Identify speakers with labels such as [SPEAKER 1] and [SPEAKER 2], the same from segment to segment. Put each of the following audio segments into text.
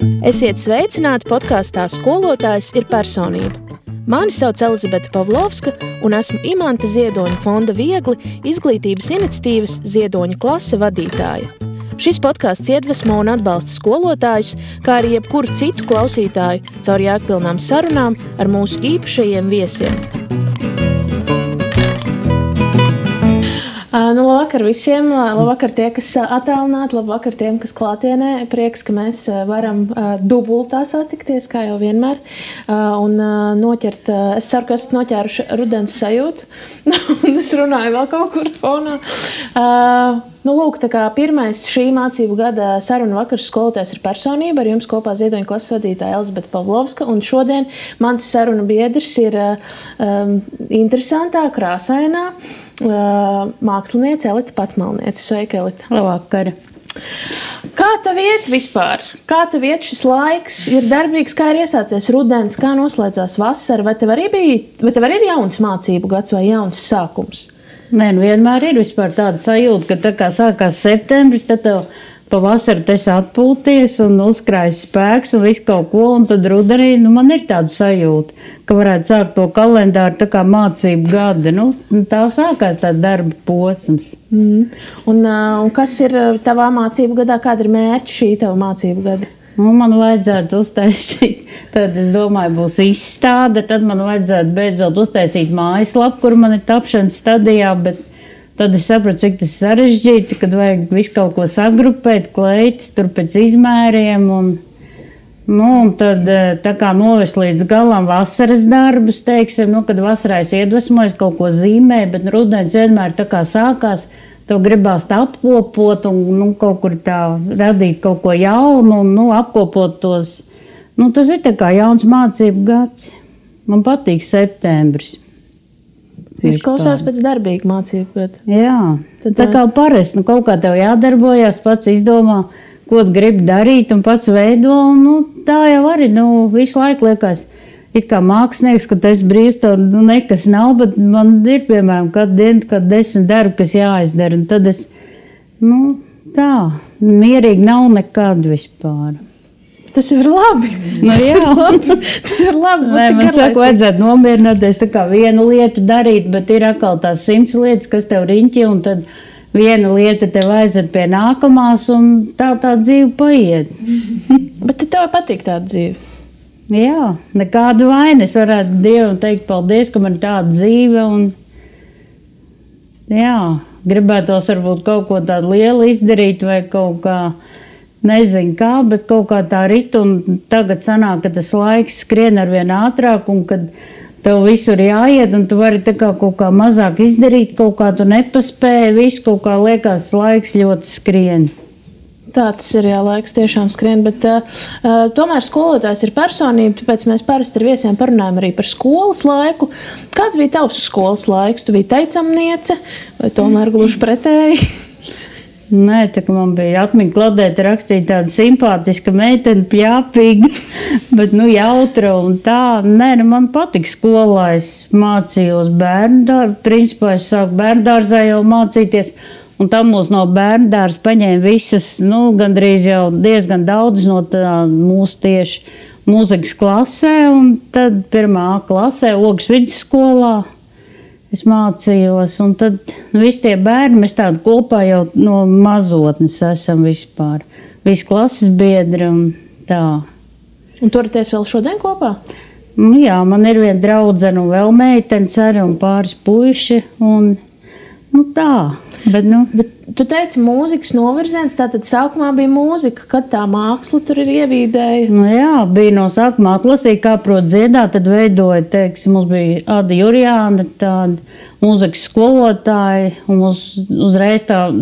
[SPEAKER 1] Esiet sveicināti podkāstā Skolotājs ir personība. Mani sauc Elizabete Pavlovska un esmu Imanta Ziedoņa fonda Viegli izglītības iniciatīvas Ziedoņa klase vadītāja. Šis podkāsts iedvesmo un atbalsta skolotājus, kā arī jebkuru citu klausītāju caur jēgpilnām sarunām ar mūsu īpašajiem viesiem. Labvakar visiem, labvakar tie, kas attālināti, labvakar tiem, kas klātienē. Prieks, ka mēs varam dubultā satikties, kā jau vienmēr, un noķert, es ceru, ka esat noķēruši rudens sajūtu, un es runāju vēl kaut kur fonā. Lūk, tā kā pirmais šī mācību gada saruna vakars Skolotājs ir personība, ar jums kopā Ziedoņa klases vadītāja Elizabete Pavlovska, un šodien mans saruna biedrs ir interesantā, krāsainā māksliniece Elita Patmalniece. Sveika, Elita.
[SPEAKER 2] Labvakar.
[SPEAKER 1] Kā tev iet vispār? Kā tev iet šis laiks? Ir darbīgs, kā ir iesācies rudens, kā noslēdzās vasara? Vai tev arī ir jauns mācību gads vai jauns sākums?
[SPEAKER 2] Nē, vienmēr ir vispār tāda sajūta, ka tā kā sākās septembris, tad tev pavasari tas atpūties un uzkrājas spēks un visu kaut ko, un tad rudenī, man ir tāda sajūta, ka varētu sākt to kalendāru tā kā mācību gada. Tā sākās tāds darba posms.
[SPEAKER 1] Un kas ir tavā mācību gadā? Kāda ir mērķi šī tava mācību gada?
[SPEAKER 2] Man vajadzētu uztaisīt, tad es domāju, būs izstāde, tad man vajadzētu beidzot uztaisīt mājaslapu, kur man ir tapšanas stadijā, bet tad es sapratu, cik tas sarežģīti, kad vajag visu kaut ko sagrupēt, kleitas, tur pēc izmēriem, un tad tā kā novest līdz galam vasaras darbus, teiksim, kad vasarā es iedvesmojos kaut ko zīmē, bet rudens vienmēr tā kā sākās, tev gribās tā apkopot un kaut kur tā radīt kaut ko jaunu un apkopot tos. Tas ir tā kā jauns mācību gads. Man patīk septembris.
[SPEAKER 1] Tas klausās pēc darbīga mācību gada.
[SPEAKER 2] Jā, tā kā parasti, kaut kā tev jādarbojās, pats izdomā, ko gribi darīt un pats veido, un tā jau arī, visu laiku liekas, it kā mākslinieks, ka tas brīvs, tev nekas nav, bet man ir, piemēram, katru dienu, kad 10 darbi, kas jāizdara, un tad es, tā, mierīgi nav nekad vispār.
[SPEAKER 1] Tas ir labi. Tas ir labi.
[SPEAKER 2] Nē, man saka, vajadzētu nomierināties tā kā vienu lietu darīt, bet ir atkal tās 100 lietas, kas tev riņķi, un tad viena lieta tev aizved pie nākamās, un tā dzīve paiet.
[SPEAKER 1] Bet tev patīk tāda dzīve?
[SPEAKER 2] Jā, nekādu vainu. Es varētu Dievam teikt paldies, ka man ir tāda dzīve, un jā, gribētos varbūt kaut ko tādu lielu izdarīt vai kaut kā, nezinu kā, bet kaut kā tā rit, un tagad sanāk, ka tas laiks skrien arvien ātrāk, un kad tev visur jāiet, un tu vari tā kā kaut kā mazāk izdarīt, kaut kā tu nepaspēji, visu kaut kā liekas laiks ļoti skrien.
[SPEAKER 1] Tā tas ir, jā, laiks tiešām skrien, bet tomēr skolotājs ir personība, tāpēc mēs parasti ar viesiem parunājam arī par skolas laiku. Kāds bija tavs skolas laiks? Tu biji teicamniece vai tomēr gluži pretēji?
[SPEAKER 2] Nē, tā kā man bija atmiņa kladēta rakstīt tāda simpātiska meitene, pļāpīga, bet jautra un tā. Nē, man patika skolā, es mācījos bērndārzā, principā es sāku bērndārzā jau mācīties. Un tam mūs no bērndārs paņēma visas, gandrīz jau diezgan daudz no tā mūsu tieši mūzikas klasē, un tad 1. klasē, Ogas vidusskolā, es mācījos, un tad visi tie bērni, mēs tādu kopā jau no mazotnes esam vispār. Visi klases biedri un tā.
[SPEAKER 1] Un turaties vēl šodien kopā?
[SPEAKER 2] Jā, man ir viena draudzene un vēl meitenes arī un pāris puiši, un tā. Bet
[SPEAKER 1] tu teici mūzikas novirziens, tātad sākumā bija mūzika, kad tā māksla tur ir ievīdēja?
[SPEAKER 2] Jā, bija no sākumā atlasīja, kā prot dziedāt, tad veidoja, teiksim, mums bija Ada Jurjāna, tāda mūzikas skolotāja, un uzreiz tas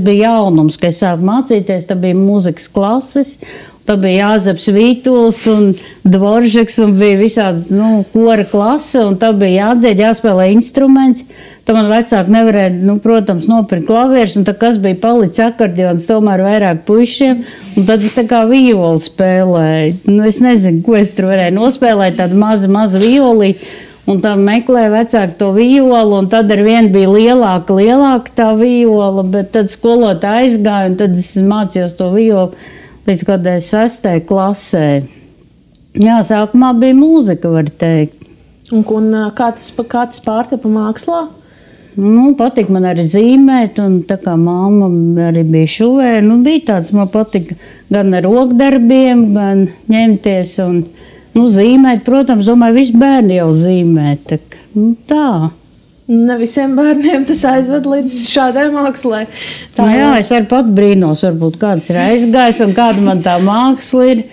[SPEAKER 2] bija jaunums, ka es sāku mācīties, tad bija mūzikas klases, tad bija Jāzeps Vītuls un Dvoržeks, un bija visādas, kora klase, un tad bija jādzied, jāspēlē instruments. Tad man vecāki nevarēja, protams, nopirkt klavierus, un tad kas bija palicis akordions tomēr vairāk puišiem, un tad es tā kā violi spēlēju. Es nezinu, ko es tur varēju nospēlēt, tādu mazu violi, un tad meklēja vecāki to violu, un tad ar vienu bija lielāka tā viola, bet tad skolotāja aizgāja, un tad es mācījos to violu. līdz kādai 6. klasē. Jā, sākumā bija mūzika, var teikt.
[SPEAKER 1] Un kā tas pārtapa mākslā?
[SPEAKER 2] Patīk man arī zīmēt, un tā kā mamma arī bija šuvē, bija tāds, man patika gan ar rokdarbiem, gan ņemties un zīmēt. Protams, domāju, visi bērni jau zīmē. Tā.
[SPEAKER 1] Ne visiem bērniem tas aizved līdz šādai mākslai.
[SPEAKER 2] Jā, es arī pat brīnos, varbūt kāds ir aizgājis un kāda man tā māksla ir.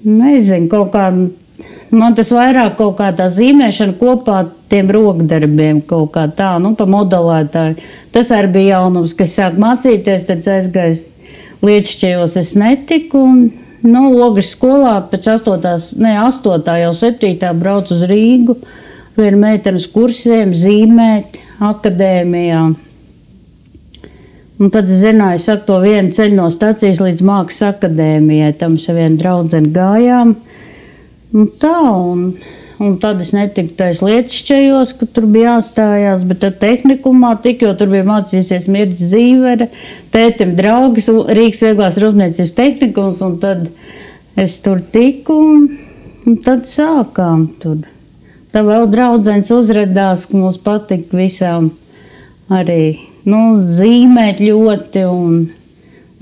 [SPEAKER 2] Nezinu, kaut kā. Man tas vairāk kaut kā tā zīmēšana kopā tiem rokdarbiem kaut kā tā, pa modelētāju. Tas arī bija jaunums, ka es sāku mācīties, tad aizgājis Liečķejos es netiku un Ogres skolā pēc 8. jau 7. braucu uz Rīgu, vienu meitenes kursiem zīmēt akadēmijā. Un tad es zināju, saku to vienu ceļu no stacijas līdz Mākslas akadēmijai, tam es ar vienu draudzeni gājām. Un tad es netiku tais Liečķejos, ka tur bija jāstājās, bet tad tehnikumā tik, jo tur bija mācīsies Mirģis Zīvere, tētim draugs, Rīgas vieglās rūpniecības tehnikums, un tad es tur tiku, un tad sākām tur. Tā vēl draudzenes uzradās, ka mums patika visām arī, zīmēt ļoti, un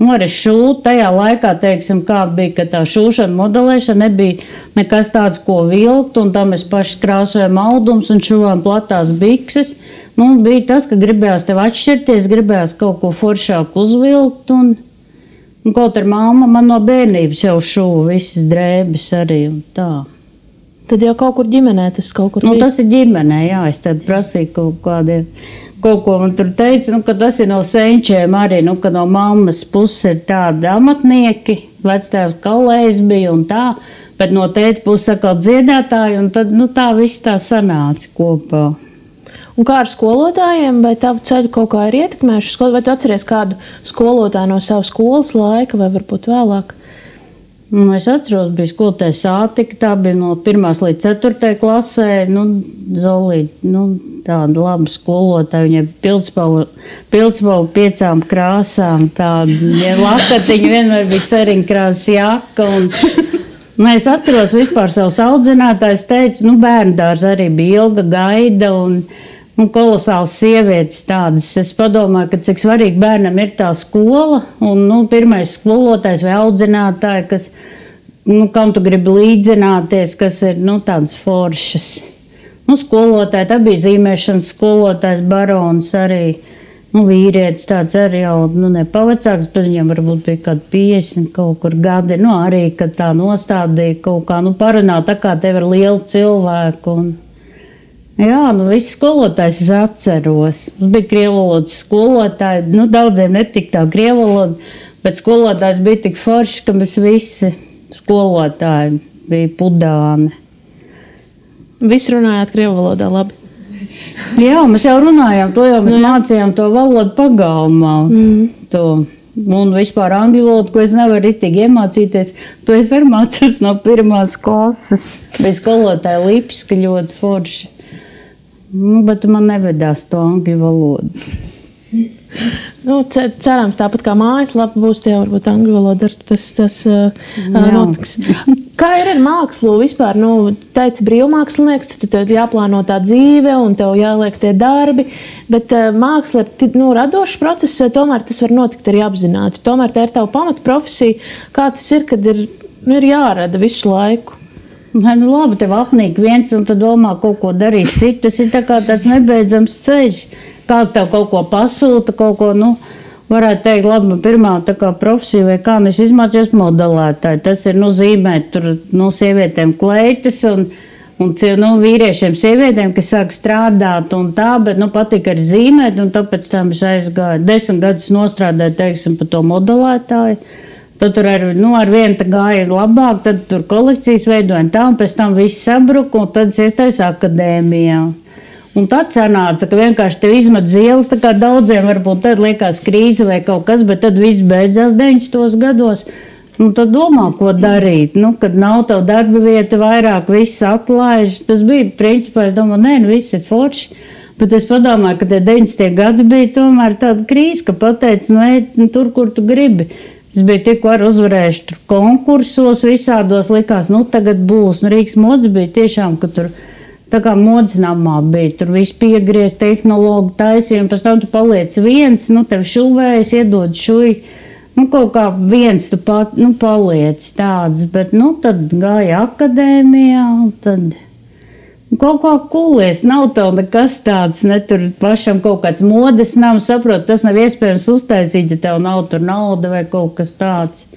[SPEAKER 2] arī šūt tajā laikā, teiksim, kā bija, ka tā šūšana, modelēšana nebija nekas tāds, ko vilkt, un tam mēs paši krāsojam audums un šuvām platās bikses. Bija tas, ka gribējās tev atšķirties, gribējās kaut ko foršāku uzvilkt, un kaut ar mamma man no bērnības jau šuva visas drēbes arī, un tā.
[SPEAKER 1] Tad jau kaut kur ģimenē tas kaut kur bija?
[SPEAKER 2] Tas ir ģimenē, jā, es tad prasīju kaut ko man tur teica, ka tas ir no senčiem arī, ka no mammas puses ir tādi amatnieki, vectēvs Kalējs bija un tā, bet no tēta puses atkal dziedātāji, un tad, tā viss tā sanāca kopā.
[SPEAKER 1] Un kā ar skolotājiem, vai tavu ceļu kaut kā ir ietekmējuši skolu, vai tu atceries kādu skolotāju no savas skolas laika, vai varbūt vēlāk?
[SPEAKER 2] Es atceros, bija skolotāja Sātika, tā bija no 1. līdz 4. klasē, Zolīte, tāda laba skolotāja, viņai pildspalva 5 krāsām, tāda lakatiņa, vienmēr bija ceriņkrāsas jaka, un es atceros vispār savus audzinātājus, teicu, bērndārs arī bija ilga gaida, un kolosāls sievietes tādas. Es padomāju, ka cik svarīgi bērnam ir tā skola, un pirmais skolotājs vai audzinātāji, kas, kam tu gribi līdzināties, kas ir, tādas foršas. Skolotāji, tā bija zīmēšanas skolotājs Barons arī, vīrietis tāds arī jau, nepavecāks, bet viņam varbūt bija kādi 50 kaut kur gadi, arī, kad tā nostādīja kaut kā, parunā tā kā tev ir liela cilvēku, jā, visi skolotājs es atceros. Mums bija krievvalodas skolotāji, daudziem netika tā krievvaloda, bet skolotājs bija tik forši, ka mēs visi skolotāji bija pudāni.
[SPEAKER 1] Visi runājāt krievvalodā labi?
[SPEAKER 2] Jā, mēs jau runājām to, jo mēs mācījām to valodu pagalmā. Un vispār angļu valodu, ko es nevaru ritīgi iemācīties, to es arī mācos no 1. klases. Bija skolotāja Lipska ļoti forši. Bet man nevedās to angļu valodu.
[SPEAKER 1] Cerams, tāpat kā mājaslapa būs, tie varbūt angļu valoda tas notiks. Kā ir ar mākslu vispār? Teici brīvmākslinieks, tad jāplāno tā dzīve un tev jāliek tie darbi, bet māksla ir radošs process, vai tomēr tas var notikt arī apzināti? Tomēr tā ir tava pamata profesija. Kā tas ir, kad ir jārada visu laiku?
[SPEAKER 2] Labi, tev apnīk viens un tu domā kaut ko darīt citu. Tas ir tā kā tāds nebeidzams ceļš. Kāds tev kaut ko pasūta, kaut ko, varētu teikt, labi, man pirmā tā kā profesija vai kā, es izmācījos modelētāji. Tas ir, zīmēt tur, sievietēm kleitas un vīriešiem sievietēm, kas sāk strādāt un tā, bet, patika arī zīmēt, un tāpēc tam es aizgāju. 10 gadus nostrādāju, teiksim, par to modelētāju. Tad tur ar vienu tā gāja labāk, tad tur kolekcijas veidoja tā, un pēc tam viss sabruka, un tad es iestājos akadēmijā. Un tad sanāca, ka vienkārši tev izmet zielas, tā kā daudziem varbūt tad liekas krīze vai kaut kas, bet tad viss beidzās 90. gados. Tad domā, ko darīt. Kad nav tev darba vieta vairāk, viss atlaiž. Tas bija principā, es domāju, viss ir forši. Bet es padomāju, ka tie 90. gadi bija tomēr tāda krīze, ka pateica, ej tur, kur tu gribi. Es biju tikko arī uzvarējuši tur konkursos visādos, likās, nu tagad būs. Un Rīgas modes bija tiešām, ka tur tā kā modes namā bija, tur viss piegriez, tehnologu taisīja, un pēc tam tu paliec viens, nu tev šuvējas, iedod šuj, nu kaut kā viens tu pat, nu paliec tāds, bet nu tad gāja akadēmijā, un tad kaut kā kūlies, nav tev nekas tāds, ne tur pašam kaut kāds modes nav, saprot, tas nav iespējams uztaisīt, ja tev nav tur nauda vai kaut kas tāds.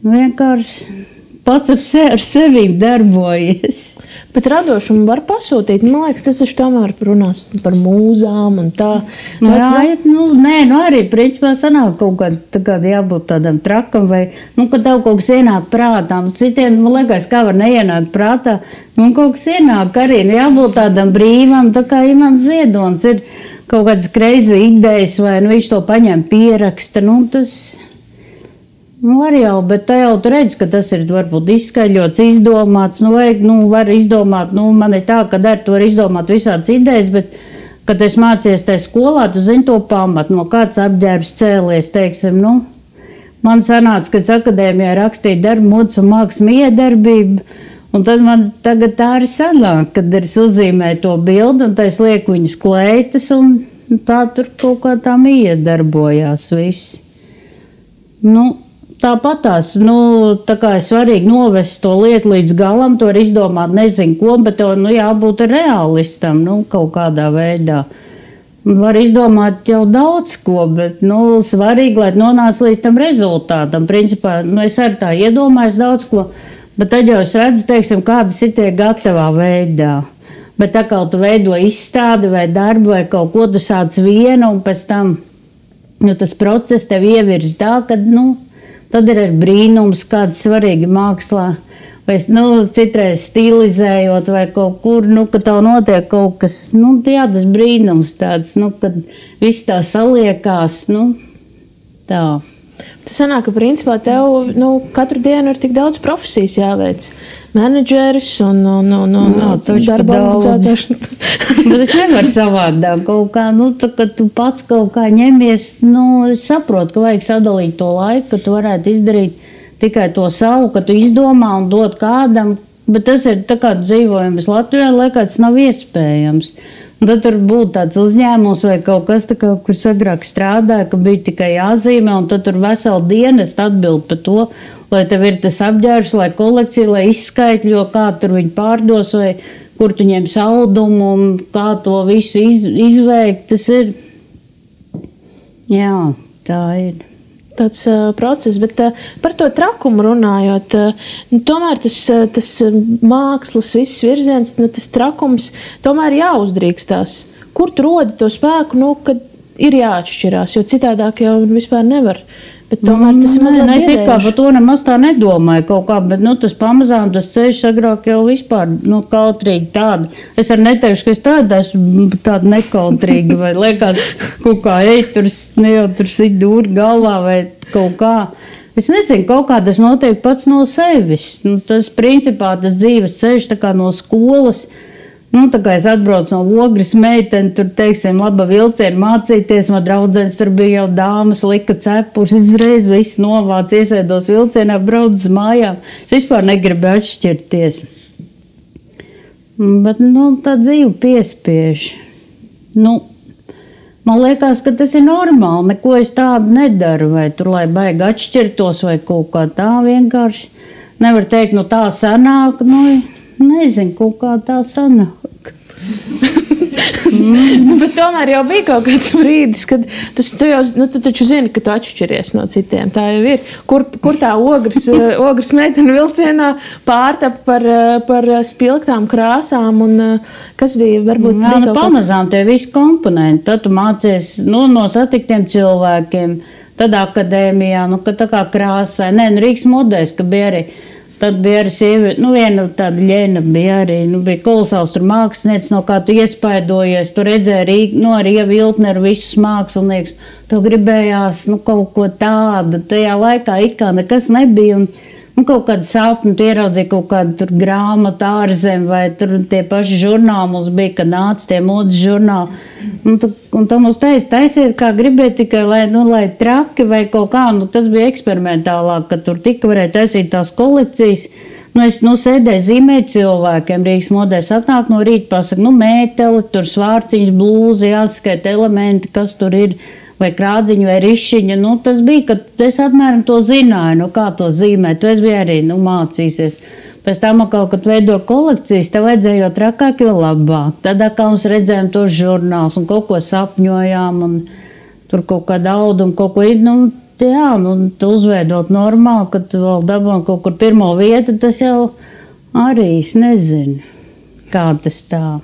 [SPEAKER 2] Vienkārši pats ar sevi darbojies.
[SPEAKER 1] Bet radošumu var pasūtīt. Man liekas, tas taču tomēr runās par mūzām un tā.
[SPEAKER 2] Arī principā sanāk kaut kāda jābūt tādam trakam vai, kad tev kaut kas ienāk prātā. Citiem, man liekas, kā var neienākt prātā. Kaut kas ienāk arī, jābūt tādam brīvam, tā kā Imants Ziedonis ir kaut kādas crazy idejas vai viņš to paņem pieraksta. Tas... Var jau, bet tā jau tu redz, ka tas ir varbūt izskaļots, izdomāts, var izdomāt, man ir tā, ka tu var izdomāt visādas idejas, bet, kad es mācies tajā skolā, tu zini to pamatu, no kāds apģērbs cēlies, teiksim, man sanāca, kad akadēmijā rakstīja darbu, modes un mākslas miedarbību, un tad man tagad tā arī sanāk, kad es uzzīmēju to bildi, un tā es lieku viņas kleitas, un tā tur kaut kā tā miedarbojās viss. Tāpatās, tā kā ir svarīgi novest to lietu līdz galam, to var izdomāt nezinu ko, bet to, jābūt realistam, kaut kādā veidā. Var izdomāt jau daudz ko, bet, svarīgi, lai nonāc līdz tam rezultātam. Principā, es arī tā iedomājos daudz ko, bet tad jau es redzu, teiksim, kādas ir tie gatavā veidā. Bet tā kā tu veido izstādi vai darbu vai kaut ko, tu sāc vienu un pēc tam, tas process tev ievirz tā, ka, tad ir brīnums, kāds svarīgi mākslā, vai citreiz stilizējot vai kaut kur, ka tev notiek kaut kas, tas brīnums tāds, kad viss tā saliekās, tā.
[SPEAKER 1] Tas sanāk, ka principā tev katru dienu ir tik daudz profesijas jāveic. Menedžeris un darba organizators.
[SPEAKER 2] Bet es nevaru savādāk kaut kā, kad tu pats kaut kā ņemies, es saprotu, ka vajag sadalīt to laiku, ka tu varētu izdarīt tikai to savu, ka tu izdomā un dod kādam, bet tas ir tā kā dzīvojums Latvijā, liekas, tas nav iespējams. Un tad tur būtu tāds uzņēmums vai kaut kas, kur agrāk strādāja, ka bija tikai jāzīmē, un tad tur veselu dienu es atbildu par to, lai tev ir tas apģērbs, lai kolekcija, lai izskaitļo, kā tur viņi pārdos, vai kur tu ņem saldumu, un kā to visu izveikt. Tas ir, jā, tā ir.
[SPEAKER 1] Tāds process, bet par to trakumu runājot, tomēr tas mākslas viss virziens, tas trakums tomēr jāuzdrīkstās. Kur tu rodi to spēku, kad ir jāatšķirās, jo citādāk jau vispār nevar. Bet tomēr tas ir mazliet biedējuši.
[SPEAKER 2] Es kā par to nemaz tā nedomāju kaut kā, bet tas pamazām, tas ceļš agrāk jau vispār, kautrīgi tāda. Es arī neteikšu, ka es esmu tāda nekautrīga, vai liekas kaut kā, tur sit dūri galvā vai kaut kā. Es nezinu, kaut kā tas notiek pats no sevis. Tas principā tas dzīves ceļš tā kā no skolas. Tā kā es atbraucu no Ogres meiteni, tur, teiksim, laba vilciena mācīties, man draudzenes tur bija jau dāmas, lika cepurs, izreiz viss novāc, iesēdos vilcienā, brauc uz mājām. Es vispār negribu atšķirties. Bet, tā dzīve piespiež. Man liekas, ka tas ir normāli, neko es tādu nedaru, vai tur, lai baigi atšķirtos, vai kaut kā tā vienkārši. Nevar teikt, tā sanāk, nezinu, kaut kā tā sanāk.
[SPEAKER 1] Bet tomēr jau bija kaut kāds brīdis, kad tu taču zini, ka tu atšķiries no citiem. Tā jau ir. Kur tā ogres meitene vilcienā pārtapa par spilgtām krāsām un kas bija varbūt bija kaut
[SPEAKER 2] pamazām tie visi komponenti. Tad tu mācies no satiktiem cilvēkiem, tad akadēmijā, ka tā kā krāsai. Rīgas modēs, ka bija arī. Tad bija arī sieviete, viena tāda ļena bija arī, bija kolosāls tur mākslinieks, no kā tu iespaidojies, tu redzēji arī Viltneru visus mākslinieks, tu gribējās, kaut ko tādu, tajā laikā it kā nekas nebija, un kaut kādu sapni, tu ieraudzīji kaut kādu tur grāmatu ārzem, vai tur tie paši žurnāli mums bija, kad nāca tie modes žurnāli. Un tu mums taisiet, kā gribēji tikai, lai traki vai kaut kā, tas bija eksperimentālāk, ka tur tika varēja taisīt tās kolekcijas. Es sēdēju zīmēt cilvēkiem, Rīgas modē atnāk no rīta, pasaka, mēteli, tur svārciņas, blūzi, jāskaita elementi, kas tur ir, vai krādziņa, vai rišiņa. Tas bija, kad es apmēram to zināju, kā to zīmēt. Tu es biju arī, mācīsies. Pēc tam, kad veido kolekcijas, tev vajadzēja jo trakāk, jo labāk. Tad, kā mums redzējām tos žurnālus un kaut ko sapņojām, un tur kaut kāda auduma, kaut ko tu uzveidot normāli, kad tu vēl dabūji kaut kur pirmo vietu, tas jau arī, es nezinu, kā tas tā.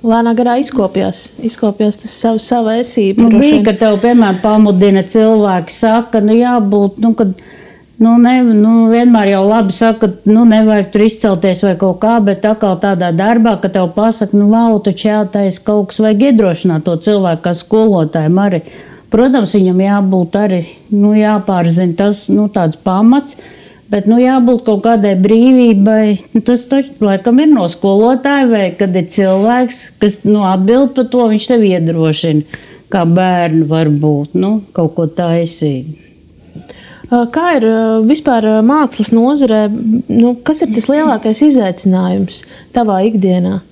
[SPEAKER 1] Lēnā garā izkopjās tas savu esību.
[SPEAKER 2] Bija, ka tev, piemēram, pamudina cilvēki, saka, jābūt, kad, vienmēr jau labi saka, nevajag tur izcelties vai kaut kā, bet atkal tādā darbā, ka tev pasaka, vau, taču jātais kaut kas vajag iedrošināt to cilvēku, kā skolotājiem arī. Protams, viņam jābūt arī, jāpārzina tas, tāds pamats, bet, jābūt kaut kādai brīvībai. Tas taču, laikam, ir no skolotāja, vai kad ir cilvēks, kas, atbild par to, viņš tev iedrošina, kā bērni var būt, kaut ko taisīt.
[SPEAKER 1] Kā ir vispār mākslas nozarē, kas ir tas lielākais izaicinājums tavā ikdienā?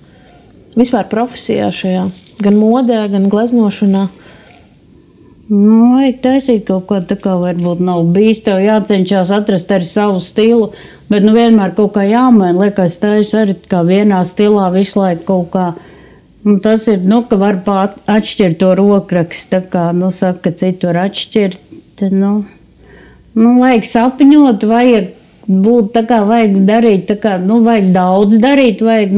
[SPEAKER 1] Vispār profesijā šajā, gan modē, gan gleznošanā?
[SPEAKER 2] Vajag taisīt kaut ko tā kā varbūt nav bijis, tev jācenšas atrast arī savu stilu, bet vienmēr kaut kā jāmaina, liekas, taisu arī kā vienā stilā visu laiku kaut kā. Un tas ir, ka var atšķirt to rokrakstu, tā kā, saka, citu var atšķirt, vajag sapņot, vajag būt tā kā, vajag darīt, tā kā, vajag daudz darīt, vajag,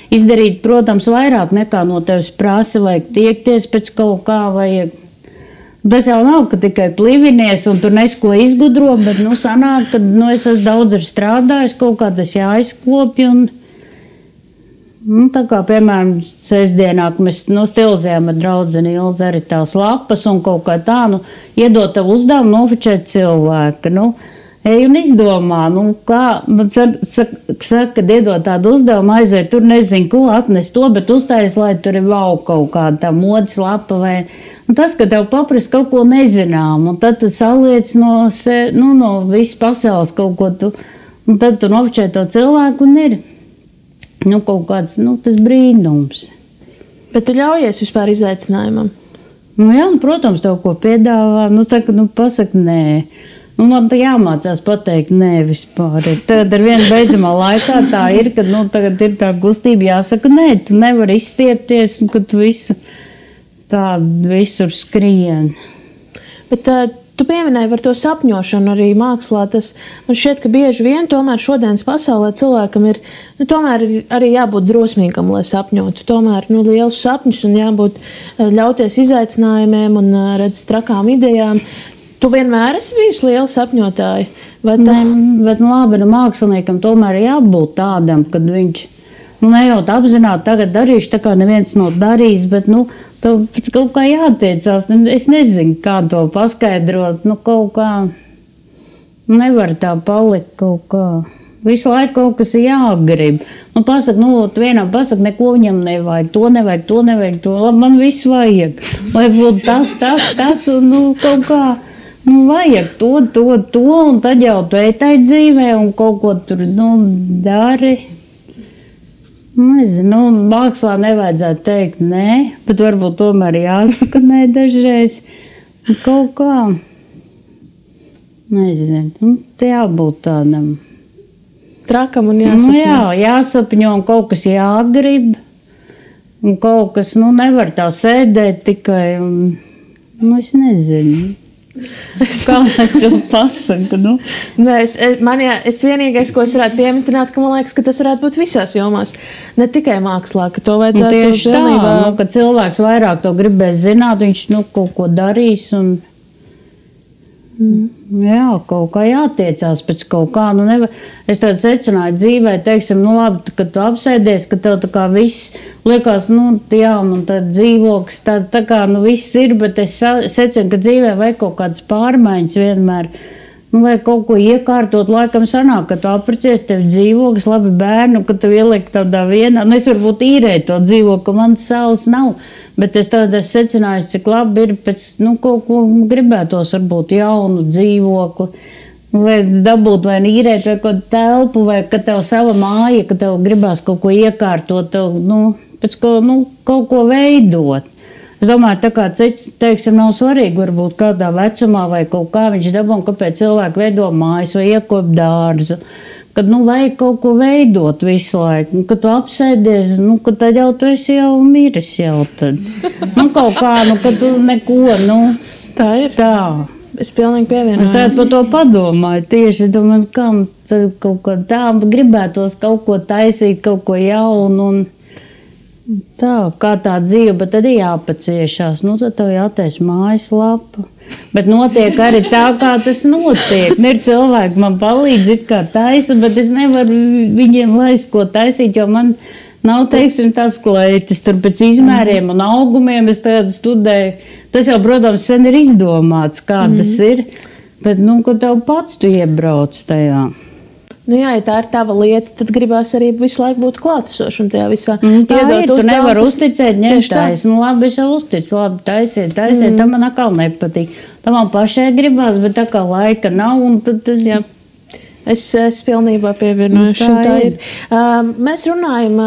[SPEAKER 2] izdarīt, protams, vairāk nekā no tevis prasa, vajag tiekties pēc kaut kā, vajag. Tas jau nav, ka tikai plivinies un tur nesko izgudro, bet, sanāk, ka, es esmu daudz arī strādājis, kaut kā tas jāizkopja un, tā kā, piemēram, sestdienā, ka mēs, stilizējām ar draudzeni Ilzi arī tās lapas un kaut kā tā, iedot tavu uzdevumu nofočēt cilvēku, ej un izdomā, kā, man saka, kad iedot tādu uzdevumu, aiziet, tur nezinu, ko atnest to, bet uztais, lai tur ir vau kaut kāda tā modes lapa vai. Un tas, ka tev paprasa kaut ko nezinām, un tad tu saliec no visas pasaules kaut ko tu, un tad tu nofočē to cilvēku un ir, kaut kāds, tas brīnums.
[SPEAKER 1] Bet tu ļaujies vispār izaicinājumam?
[SPEAKER 2] Jā, protams, tev ko piedāvā, pasaka nē. Man tā jāmācās pateikt nē vispār. Tagad ar vienu beidzamā laikā tā ir, kad, tagad ir tā kustība jāsaka nē, tu nevari izstiepties, un kad tu visur skrien.
[SPEAKER 1] Bet tu pieminēji par to sapņošanu arī mākslā. Man šķiet, ka bieži vien tomēr šodienas pasaulē cilvēkam ir, tomēr arī jābūt drosmīgam, lai sapņotu. Tomēr, lielus sapņus un jābūt ļauties izaicinājumiem un redz trakām idejām. Tu vienmēr esi bijusi liela sapņotāja? Vai tas...
[SPEAKER 2] Bet labi, māksliniekam tomēr jābūt tādam, kad viņš, nejūt apzināti tagad darīšu, tā kā neviens nav darījis, bet, tev pēc kaut kā jātiecās. Es nezinu, kā to paskaidrot. Kaut kā nevar tā palikt kaut kā. Visu laiku kaut kas jāgrib. Pasaka, vienam pasaka, neko viņam nevajag, to nevajag, to. Labi, man viss vajag. Vai būtu tas, un kaut kā. Vajag to, un tad jau tu ejtai dzīvē un kaut ko tur, dari. Nezinu, mākslā nevajadzētu teikt nē, bet varbūt tomēr jāsaka nē dažreiz. Kaut kā, nezinu, te jābūt tādam.
[SPEAKER 1] Trakam un jāsapņo.
[SPEAKER 2] Jā, jāsapņo un kaut kas jāgrib. Un kaut kas, nevar tā sēdēt tikai, un, es nezinu. Kā lai to pasaka?
[SPEAKER 1] Nē, es vienīgais, ko es varētu pieminēt, ka man liekas, ka tas varētu būt visās jomās. Ne tikai mākslā, ka to vajadzētu
[SPEAKER 2] tieši tā, ka cilvēks vairāk to gribēs zināt, viņš kaut ko darīs un jā, kaut kā jātiecās pēc kaut kā. Es tādu secināju dzīvē, teiksim, labi, kad tu apsēdies, ka tev tā kā viss liekas, jā, un tad dzīvoklis tāds tā kā, viss ir, bet es secinu, ka dzīvē vajag kaut kādas pārmaiņas vienmēr. vai kaut ko iekārtot, laikam sanāk, ka tu aprecies, tev dzīvoklis, labi bērnu, ka tu ieliek tādā vienā. Es varbūt īrēju to dzīvokli, man savs nav, bet es tādā secināju, cik labi ir pēc, kaut ko gribētos, varbūt jaunu dzīvokli. Vai dabūt, vai īrēt, vai kaut telpu, vai ka tev sava māja, ka tev gribās kaut ko iekārtot, tev, pēc kaut ko veidot. Es domāju, tā kā cits, teiksim, nav svarīgi, varbūt kādā vecumā vai kaut kā viņš dabū, kāpēc cilvēki veido mājas vai iekop dārzu. Kad, vajag kaut ko veidot visu laiku. Kad tu apsēdies, kad tad jau tu esi jau miris jau tad. Kaut kā, kad tu neko,
[SPEAKER 1] Tā ir.
[SPEAKER 2] Tā.
[SPEAKER 1] Es pilnīgi pievienojos.
[SPEAKER 2] Es tādu par to padomāju tieši, domāju, kam kaut ko tā, gribētos kaut ko taisīt, kaut ko jaunu un tā, kā tā dzīve, bet tad ir jāpaciešās. Tad tev jātais mājaslapa. Bet notiek arī tā, kā tas notiek. Ir cilvēki, man palīdz it kā taisa, bet es nevaru viņiem laist, ko taisīt, jo man nav, teiksim, tāds kleitis tur pēc izmēriem un augumiem. Es tādu studēju. Tas jau, protams, sen ir izdomāts, kā tas ir. Bet, kad tev pats tu iebrauc tajā.
[SPEAKER 1] Jā, ja tā ir tava lieta, tad gribās arī visu laiku būt klātesošam tajā visā.
[SPEAKER 2] Tā ir, tu nevar uzticēt, ņemtais. Labi, es jau uzticu, labi, taisiet, tam man atkal nepatīk. Tam man pašai gribās, bet tā kā laika nav, un tad tas... Jā.
[SPEAKER 1] Es pilnībā pievienojos. Tā ir. Mēs runājam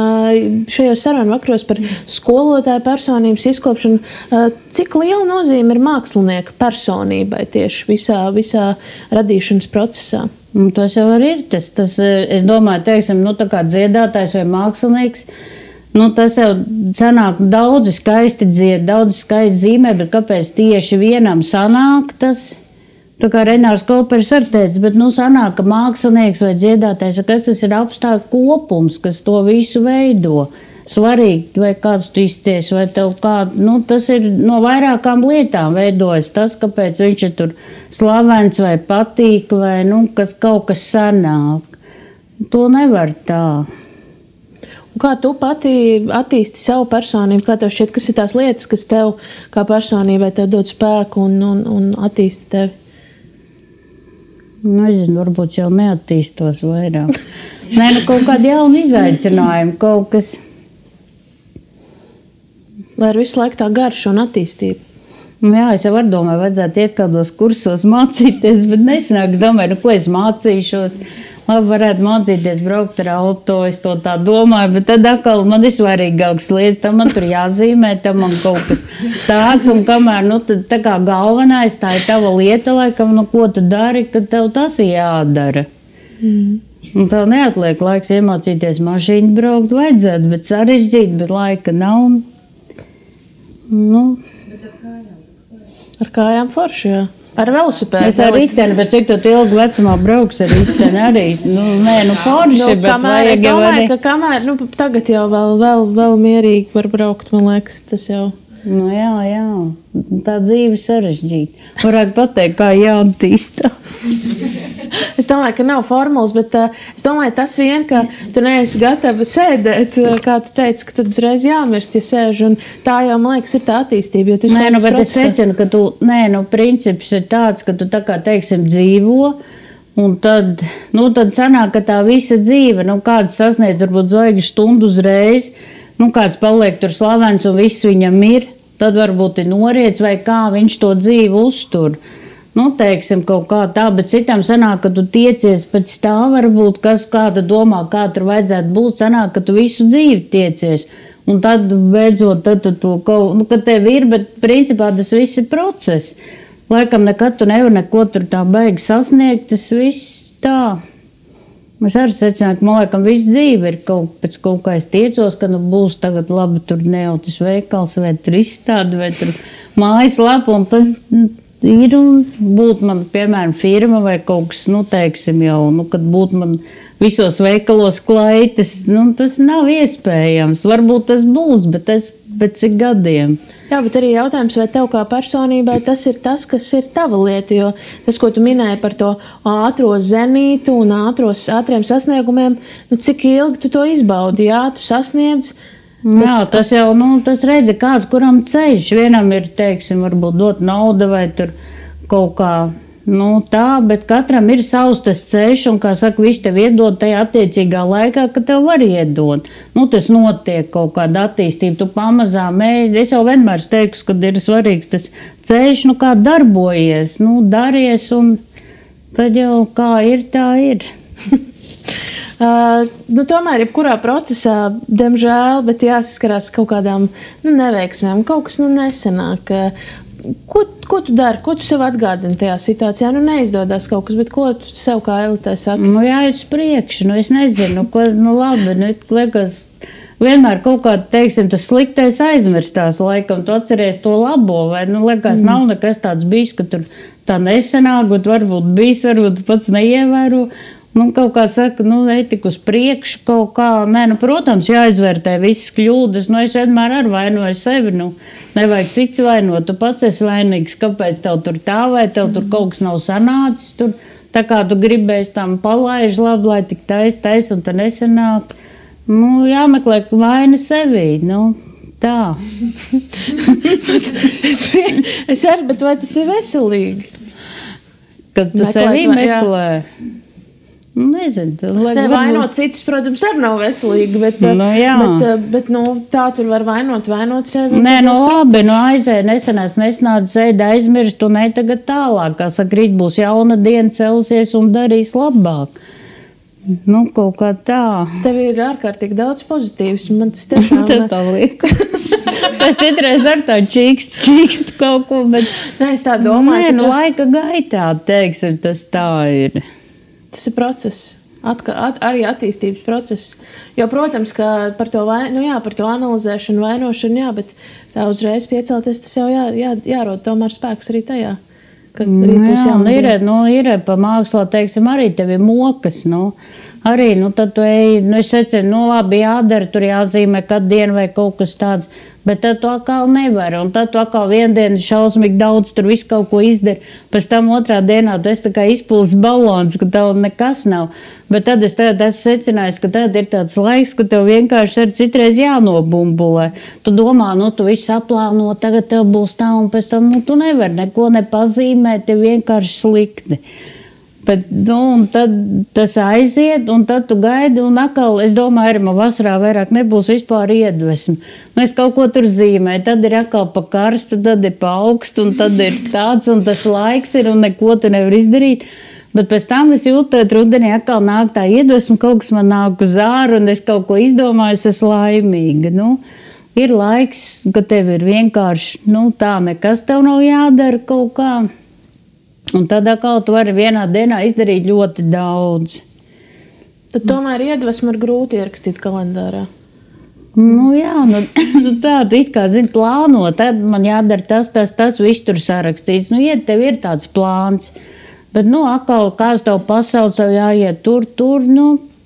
[SPEAKER 1] šajos sarunu vakaros par skolotāju personības izkopšanu. Cik liela nozīme ir mākslinieka personībai tieši visā radīšanas procesā?
[SPEAKER 2] Tas jau arī ir. Tas, es domāju, teiksim, tā kā dziedātājs vai mākslinieks, tas jau sanāk daudzi skaisti dzied, daudzi skaisti zīmē, bet kāpēc tieši vienam sanāk tas? Tā kā Renārs Koperis arī teica, bet sanāk, ka mākslinieks vai dziedātājs, kas tas ir apstākļu kopums, kas to visu veido. Svarīgi, vai kāds tu izties, vai tev kādu, tas ir no vairākām lietām veidojas tas, kāpēc viņš ir tur slavens vai patīk, vai, kaut kas sanāk. To nevar tā.
[SPEAKER 1] Un kā tu pati attīsti savu personību? Kā tev šķiet, kas ir tās lietas, kas tev kā personībai tev dod spēku un attīsti tevi?
[SPEAKER 2] Nezinu, varbūt jau neattīstos vairāk. Kaut kādi jauni izaicinājumi, kaut kas.
[SPEAKER 1] Lai ir visu laiku tā garša un attīstība.
[SPEAKER 2] Jā, es jau domāju, vajadzētu iet kādos kursos mācīties, bet nesanāk, es domāju, ko es mācīšos. Labi, varētu mācīties braukt ar auto, es to tā domāju, bet tad atkal man ir svarīgāks lietas, tam man tur jāzīmē, tam man kaut kas tāds, un kamēr, tad tā kā galvenais, tā ir tava lieta, laikam, ko tu dari, kad tev tas ir jādara. Un tev neatliek laiks iemācīties mašīnu braukt, vajadzētu, bet sarežģīt, bet laika nav.
[SPEAKER 1] Ar kājām forši, jā. Ar velosipēdu.
[SPEAKER 2] Es ar riteni, bet cik tu ilgi vecumā brauks ar riteni arī? Forši, bet vajag
[SPEAKER 1] es domāju, ka kamēr, tagad jau vēl mierīgi var braukt, man liekas, tas jau.
[SPEAKER 2] Jā, tā dzīve sarežģīta. Varētu pateikt, kā jāattīstās.
[SPEAKER 1] Es domāju, ka nav formulas, bet es domāju, tas vien, ka tu neesi gatava sēdēt, kā tu teici, ka tad uzreiz jāmirst, ja sēž, un tā jau, man liekas, ir tā attīstība, jo tu sēdz
[SPEAKER 2] bet es secinu, ka tu, princips ir tāds, ka tu tā kā, teiksim, dzīvo, un tad sanāk, ka tā visa dzīve, kāds sasniedz, varbūt zvaigžņu stundu uzreiz, kāds paliek tur slavens un viss viņam ir, tad varbūt ir noriets vai kā viņš to dzīvi uztur. Teiksim, kaut kā tā, bet citam sanāk, ka tu tiecies pēc tā varbūt, kas kāda domā, kā tur vajadzētu būt, sanāk, ka tu visu dzīvi tiecies. Un tad beidzot, tad tu to kaut, ka tev ir, bet principā tas viss ir process. Laikam nekad tu nevar neko tur tā baigi sasniegt, tas viss tā. Es arī secināju, ka man laikam visu dzīvi ir pēc kaut kā es tiecos, ka būs tagad labi tur neautis veikals vai tur izstādi vai tur mājaslapa, un tas ir un būtu man, piemēram, firma vai kaut kas, teiksim jau, kad būtu man visos veikalos klaites, tas nav iespējams. Varbūt tas būs, bet tas pēc cik gadiem.
[SPEAKER 1] Jā, bet arī jautājums, vai tev kā personībai tas ir tas, kas ir tava lieta, jo tas, ko tu minēji par to ātro zenītu un ātriem sasniegumiem, cik ilgi tu to izbaudi, jā, tu sasniedz.
[SPEAKER 2] Jā, tas jau, tas redzi kāds, kuram ceļš, vienam ir, teiksim, varbūt dot nauda vai tur kaut kā, Nu, tā, bet katram ir savs tas ceļš, un, kā saka, viņš tev iedod tajā attiecīgā laikā, ka tev var iedot. Nu, tas notiek kaut kāda attīstība, tu pamazām ej. Es jau vienmēr teiktu, ka ir svarīgs tas ceļš, nu, kā darbojies, nu, daries, un tad jau kā ir, tā ir.
[SPEAKER 1] Tomēr, jebkurā procesā, diemžēl, bet jāsaskarās kaut kādām neveiksmēm, kaut kas nesenāk. Ko tu dari? Ko tu sev atgādini tajā situācijā? Neizdodas kaut kas, bet ko tu sev kā elitē saki?
[SPEAKER 2] Jāiet uz priekšu, es nezinu, ko, labi, liekas, vienmēr kaut kā, teiksim, tas sliktais aizmirstās laikam, tu atceries to labo, vai, liekas, nav nekas tāds bijis, ka tur tā nesenāk, bet varbūt bijis, varbūt pats neievēro. Kaut kā saka, ej tik uz priekšu kaut kā. Nē, protams, jāizvērtē visas kļūdas. Es vienmēr ar vainoju sevi. Nevajag cits vainot. Tu pats esi vainīgs. Kāpēc tev tur tā vai tev tur kaut kas nav sanācis? Tur, tā kā tu gribēsi tam palaiž labi, lai tik tais un tā nesanāk. Jāmeklē vaina sevī. Tā.
[SPEAKER 1] Es arī, bet vai tas ir veselīgi?
[SPEAKER 2] Kad tu sevi meklē? Nezinu.
[SPEAKER 1] Vainot citus, protams, arī nav veselīgi, bet tā tur var vainot sevi.
[SPEAKER 2] Nē, labi, aizēja, nesanāca, ēda aizmirst, un ej tagad tālāk. Kā saka, rīt būs jauna diena, celsies un darīs labāk. Kaut kā tā.
[SPEAKER 1] Tev ir ārkārtīgi daudz pozitīvs. Man tas tiešām
[SPEAKER 2] tā liekas. Tas citreiz ar tā čīkst kaut ko, bet...
[SPEAKER 1] Nē, es tā domāju.
[SPEAKER 2] Nē, laika gaitā, teiksim, tas tā ir.
[SPEAKER 1] Tas ir process, arī attīstības process. Jo, protams, ka par to analizēšanu, vainošanu, bet tā uzreiz piecelties, tas jau jārod tomēr spēks arī tajā.
[SPEAKER 2] Ir pa mākslā, teiksim, arī tev ir mokas, arī, tad tu ej, es secinu, labi, jādara, tur jāzīmē katru dienu vai kaut kas tāds, bet tad tu atkal nevari, un tad tu atkal vienu dienu šausmīgi daudz tur visu kaut ko izdari, pēc tam otrā dienā tu esi tā kā izpūlis balons, ka tev nekas nav, bet tad es esmu secinājis, ka tad ir tāds laiks, ka tev vienkārši ar citreiz jānobumbulē. Tu domā, tu visu aplāno, tagad tev būs tā, un pēc tam, tu nevari neko nepazīmēt, tev vienkārši slikti. Bet, un tad tas aiziet, un tad tu gaidi, un atkal, es domāju, arī man vasarā vairāk nebūs vispār iedvesmi. Es kaut ko tur zīmēju, tad ir atkal pa karstu, tad ir pa augstu, un tad ir tāds, un tas laiks ir, un neko tu nevar izdarīt. Bet pēc tam es jūtu, ka rudenī atkal nāk tā iedvesma, kaut kas man nāk uz āru, un es kaut ko izdomāju, es esmu laimīga. Ir laiks, ka tev ir vienkārši, tā nekas tev nav jādara kaut kā. Un tad atkal tu vari vienā dienā izdarīt ļoti daudz.
[SPEAKER 1] Tad tomēr iedvesmu ir grūti ierakstīt kalendārā.
[SPEAKER 2] Tā, tu it kā zini plāno, tad man jādara tas, viss tur sarakstīts. Tev ir tāds plāns, bet, atkal, kāds tev pasauc, tev jāiet tur,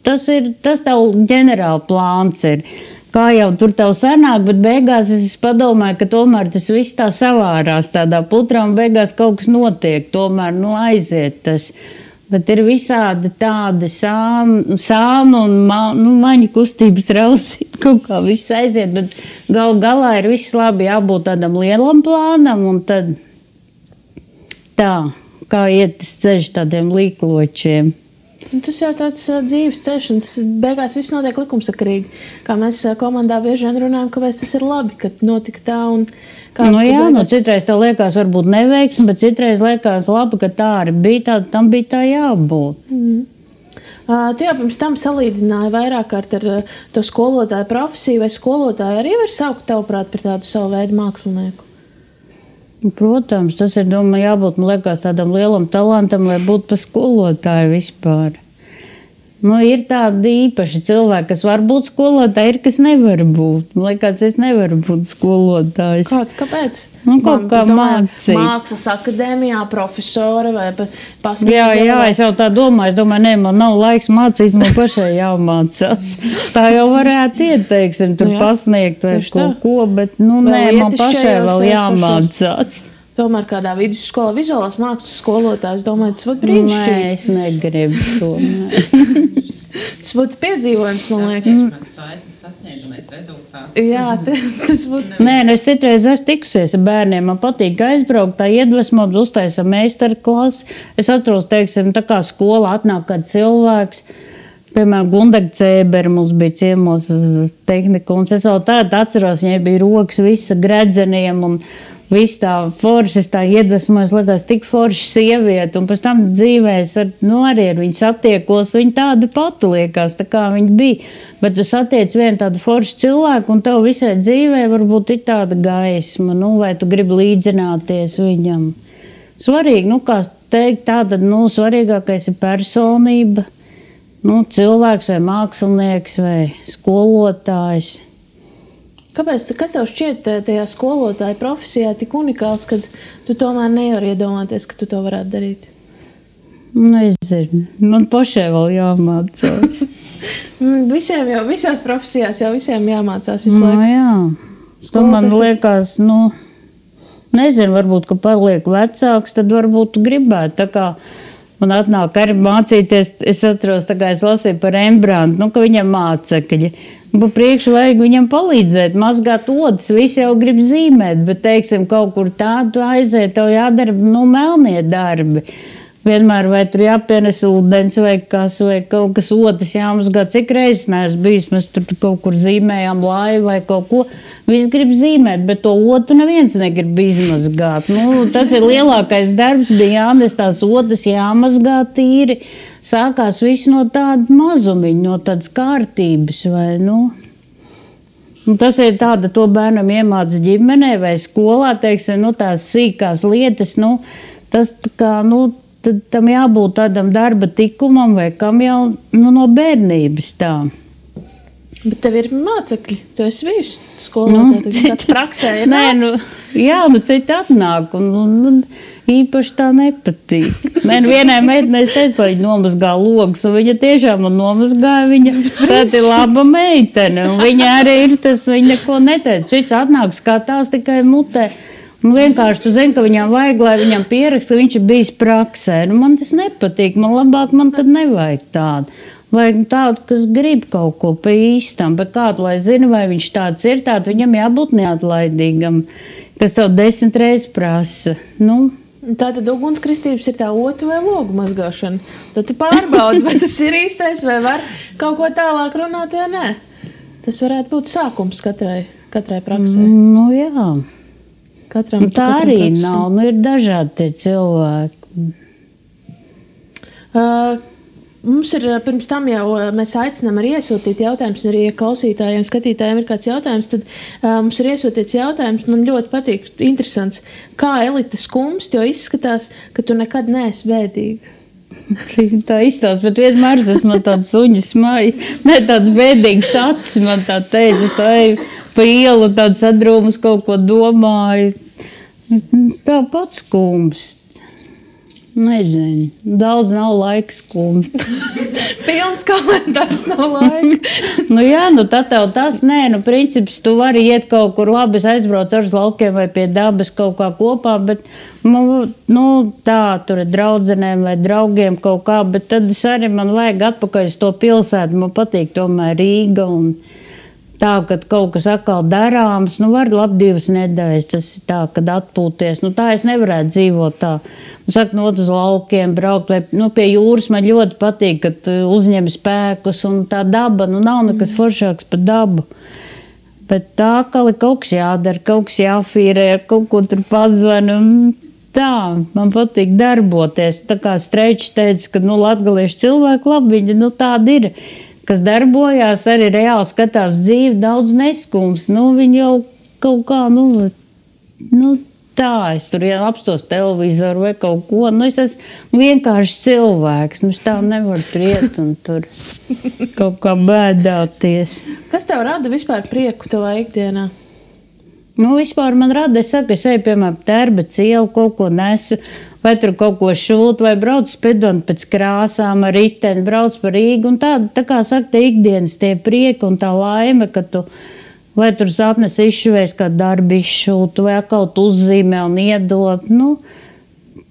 [SPEAKER 2] tas tev ģenerāli plāns ir. Kā jau tur tev sanāk, bet beigās es padomāju, ka tomēr tas viss tā savārās tādā putrā un beigās kaut kas notiek, tomēr, aiziet tas. Bet ir visādi tādi sānu un maņu kustības rausīt, kaut kā viss aiziet, bet galā ir viss labi, jābūt tādam lielam plānam un tad tā, kā iet tas ceļš tādiem līkločiem.
[SPEAKER 1] Tas jau tāds dzīves ceļš, un tas beigās viss notiek likumsakarīgi. Kā mēs komandā bieži vien runājam, kāpēc tas ir labi, ka notika tā un kāds
[SPEAKER 2] citreiz tev liekas varbūt neveiksmi, bet citreiz liekas labi, ka tā arī bija tā, tam bija tā jābūt.
[SPEAKER 1] Tu jau pirms tam salīdzināji vairāk kārt ar to skolotāju profesiju, vai skolotāju arī var saukt tavuprāt par tādu savu veidu mākslinieku?
[SPEAKER 2] Protams, tas ir, jābūt, man liekas, tādam lielam talantam, lai būtu par skolotāju vispār. Ir tādi īpaši cilvēki, kas var būt skolotāji, ir, kas nevar būt. Man liekas, es nevaru būt skolotājs.
[SPEAKER 1] Kāpēc?
[SPEAKER 2] Kaut kā mācīt.
[SPEAKER 1] Mākslas akadēmijā, profesora vai pasniedzēja?
[SPEAKER 2] Jā, es jau tā domāju. Es domāju, man nav laiks mācīt, man pašai jāmācās. Tā jau varētu ieteiksim, tur pasniegt vai kaut ko, bet, man pašai vēl jāmācās.
[SPEAKER 1] Tomēr kādā vidusskolā vizuālās mākslas skolotājs, domāju, tas būtu brīnišķīgi.
[SPEAKER 2] Nē, es negribu to.
[SPEAKER 1] Tas būtu piedzīvojums, man liekas.
[SPEAKER 3] Sasniedzamais rezultāti.
[SPEAKER 1] Jā, tas būtu.
[SPEAKER 2] Nē, es citreiz esmu tikusies ar bērniem. Man patīk aizbraukt, tā iedvesmot, uztaisa meistarklasi. Es atceros, teiksim, tā kā skolā atnāk kāds cilvēks. Piemēram, Gundaga Cēbera mums bija ciemos uz tehniku. Un es vēl tādu atceros, viņai bija rokas visa gredzeniem un viss tā forši, es tā iedvesmojos, likās tik forši sievieti, un pēc tam dzīvēs arī ar viņu satiekos, viņa tāda pati liekas, tā kā viņa bija. Bet tu satiec vienu tādu foršu cilvēku, un tev visai dzīvē varbūt ir tāda gaisma, vai tu gribi līdzināties viņam. Svarīgi, kā teikt, tātad, svarīgākais ir personība, cilvēks vai mākslinieks vai skolotājs.
[SPEAKER 1] Kāpēc, kas tev šķiet tajā skolotāja profesijā tik unikāls, kad tu tomēr nevari iedomāties, ka tu to varētu darīt?
[SPEAKER 2] Nezinu. Man pašai vēl jāmācās.
[SPEAKER 1] Visās profesijās jau visiem jāmācās visu laiku.
[SPEAKER 2] Jā. Man liekas, nezinu, varbūt, ka paliek vecāks, tad varbūt gribētu. Tā kā man atnāk arī mācīties, es atceros, tā kā es lasīju par Rembrantu, ka viņam mācekļi. Pa priekšu vajag viņam palīdzēt, mazgāt odas, visi jau grib zīmēt, bet, teiksim, kaut kur tādu aiziet, tev jādara, melnie darbi. Vienmēr vai tur jāpienes ūdens vai kaut kas odas jāmazgā, cik reizes neesmu bijis, mēs tur kaut kur zīmējām laivu vai kaut ko. Visi grib zīmēt, bet to odu neviens negrib izmazgāt. Tas ir lielākais darbs, bija jānes tās odas jāmazgā tīri. Sākās viss no tāda mazumiņa, no tādas kārtības. Tas ir tāda, to bērnam iemācas ģimenē vai skolā, teiksim, tās sīkās lietas. Tas tā kā, tad tam jābūt tādam darba tikumam vai kam jau no bērnības tā.
[SPEAKER 1] Bet tev ir mācekļi, tu esi bijusi skolā, kāds praksē ir nāc?
[SPEAKER 2] Citi atnāk un īpaši tā nepatīk. Vienai meitenei es teicu, lai viņa nomazgā logus, un viņa tiešām man nomazgāja, viņa tāda ir laba meitene, un viņa arī ir tas, viņa neko neteica. Cits atnāk, skatās tikai mutē. Un vienkārši tu zini, ka viņam vajag, lai viņam pieraksta, ka viņš ir bijis praksē. Man tas nepatīk, man labāk, man tad nevajag tādu. Vajag tādu, kas grib kaut ko pa īstam, bet kādu, lai zina, vai viņš tāds ir, tādu viņam jābūt neatlaidīgam, kas tev 10 reizes prasa.
[SPEAKER 1] Tātad ugunskristības ir tā otu vai logu mazgāšana. Tad tu pārbaudi, vai tas ir īstais, vai var kaut ko tālāk runāt, vai nē. Tas varētu būt sākums katrai praksē.
[SPEAKER 2] Jā.
[SPEAKER 1] Katram
[SPEAKER 2] arī procesam. Nav, ir dažādi tie cilvēki.
[SPEAKER 1] Mums ir pirms tam jau mēs aicinām arī iesūtīt jautājumus, un arī ja klausītājiem, skatītājiem ir kāds jautājums, tad mums ir iesūtīts jautājums, man ļoti patīk, interesants, kā Elita skumst, jo izskatās, ka tu nekad neesi bēdīga.
[SPEAKER 2] Tā izstāsta, bet vienmēr man tāds suņas maja, tāds bēdīgs acis, man tā teica, tā ir pa ielu tāds sadrūmas kaut ko domāju. Tā pats skumst. Nezinu, daudz nav laika skumt.
[SPEAKER 1] Pilns kalendārs nav laika.
[SPEAKER 2] Tad tev tas, princips, tu vari iet kaut kur labi, es aizbraucu ar laukiem vai pie dabas kaut kā kopā, bet, tā, tur ir draudzenēm vai draugiem kaut kā, bet tad arī man vajag atpakaļ uz to pilsētu, man patīk tomēr Rīga un tā, kad kaut kas atkal darāms, var labi 2 nedēļas, tas ir tā, kad atpūties. Tā es nevarētu dzīvot tā. Uz laukiem braukt vai pie jūras man ļoti patīk, kad uzņem spēkus un tā daba, nav nekas foršāks par dabu. Bet tā, ka kaut kas jādara, kaut kas jāfīrē, ar kaut ko tur pazvani un tā, man patīk darboties. Tā kā Streičs teica, ka latgaliešu cilvēki labi, viņi tādi ir. Kas darbojās, arī reāli skatās dzīvi, daudz neskums. Viņi jau kaut kā, tā, es tur apstos televizoru vai kaut ko. Es esmu vienkārši cilvēks, es tā nevaru tur iet un tur kaut kā bēdāties.
[SPEAKER 1] Kas tev rada vispār prieku tavā ikdienā?
[SPEAKER 2] Vispār man rada, es eju, piemēram, Tērbatas ielu, kaut ko nesu, vai tur kaut ko šūt, vai braucu spedot pēc krāsām ar riteni, braucu par Rīgu, un tā kā saka, tie ikdienas tie prieki un tā laime, ka tu, vai tur sapnes izšuvēs, kā darbi izšūtu, vai kaut uzzīmē un iedot,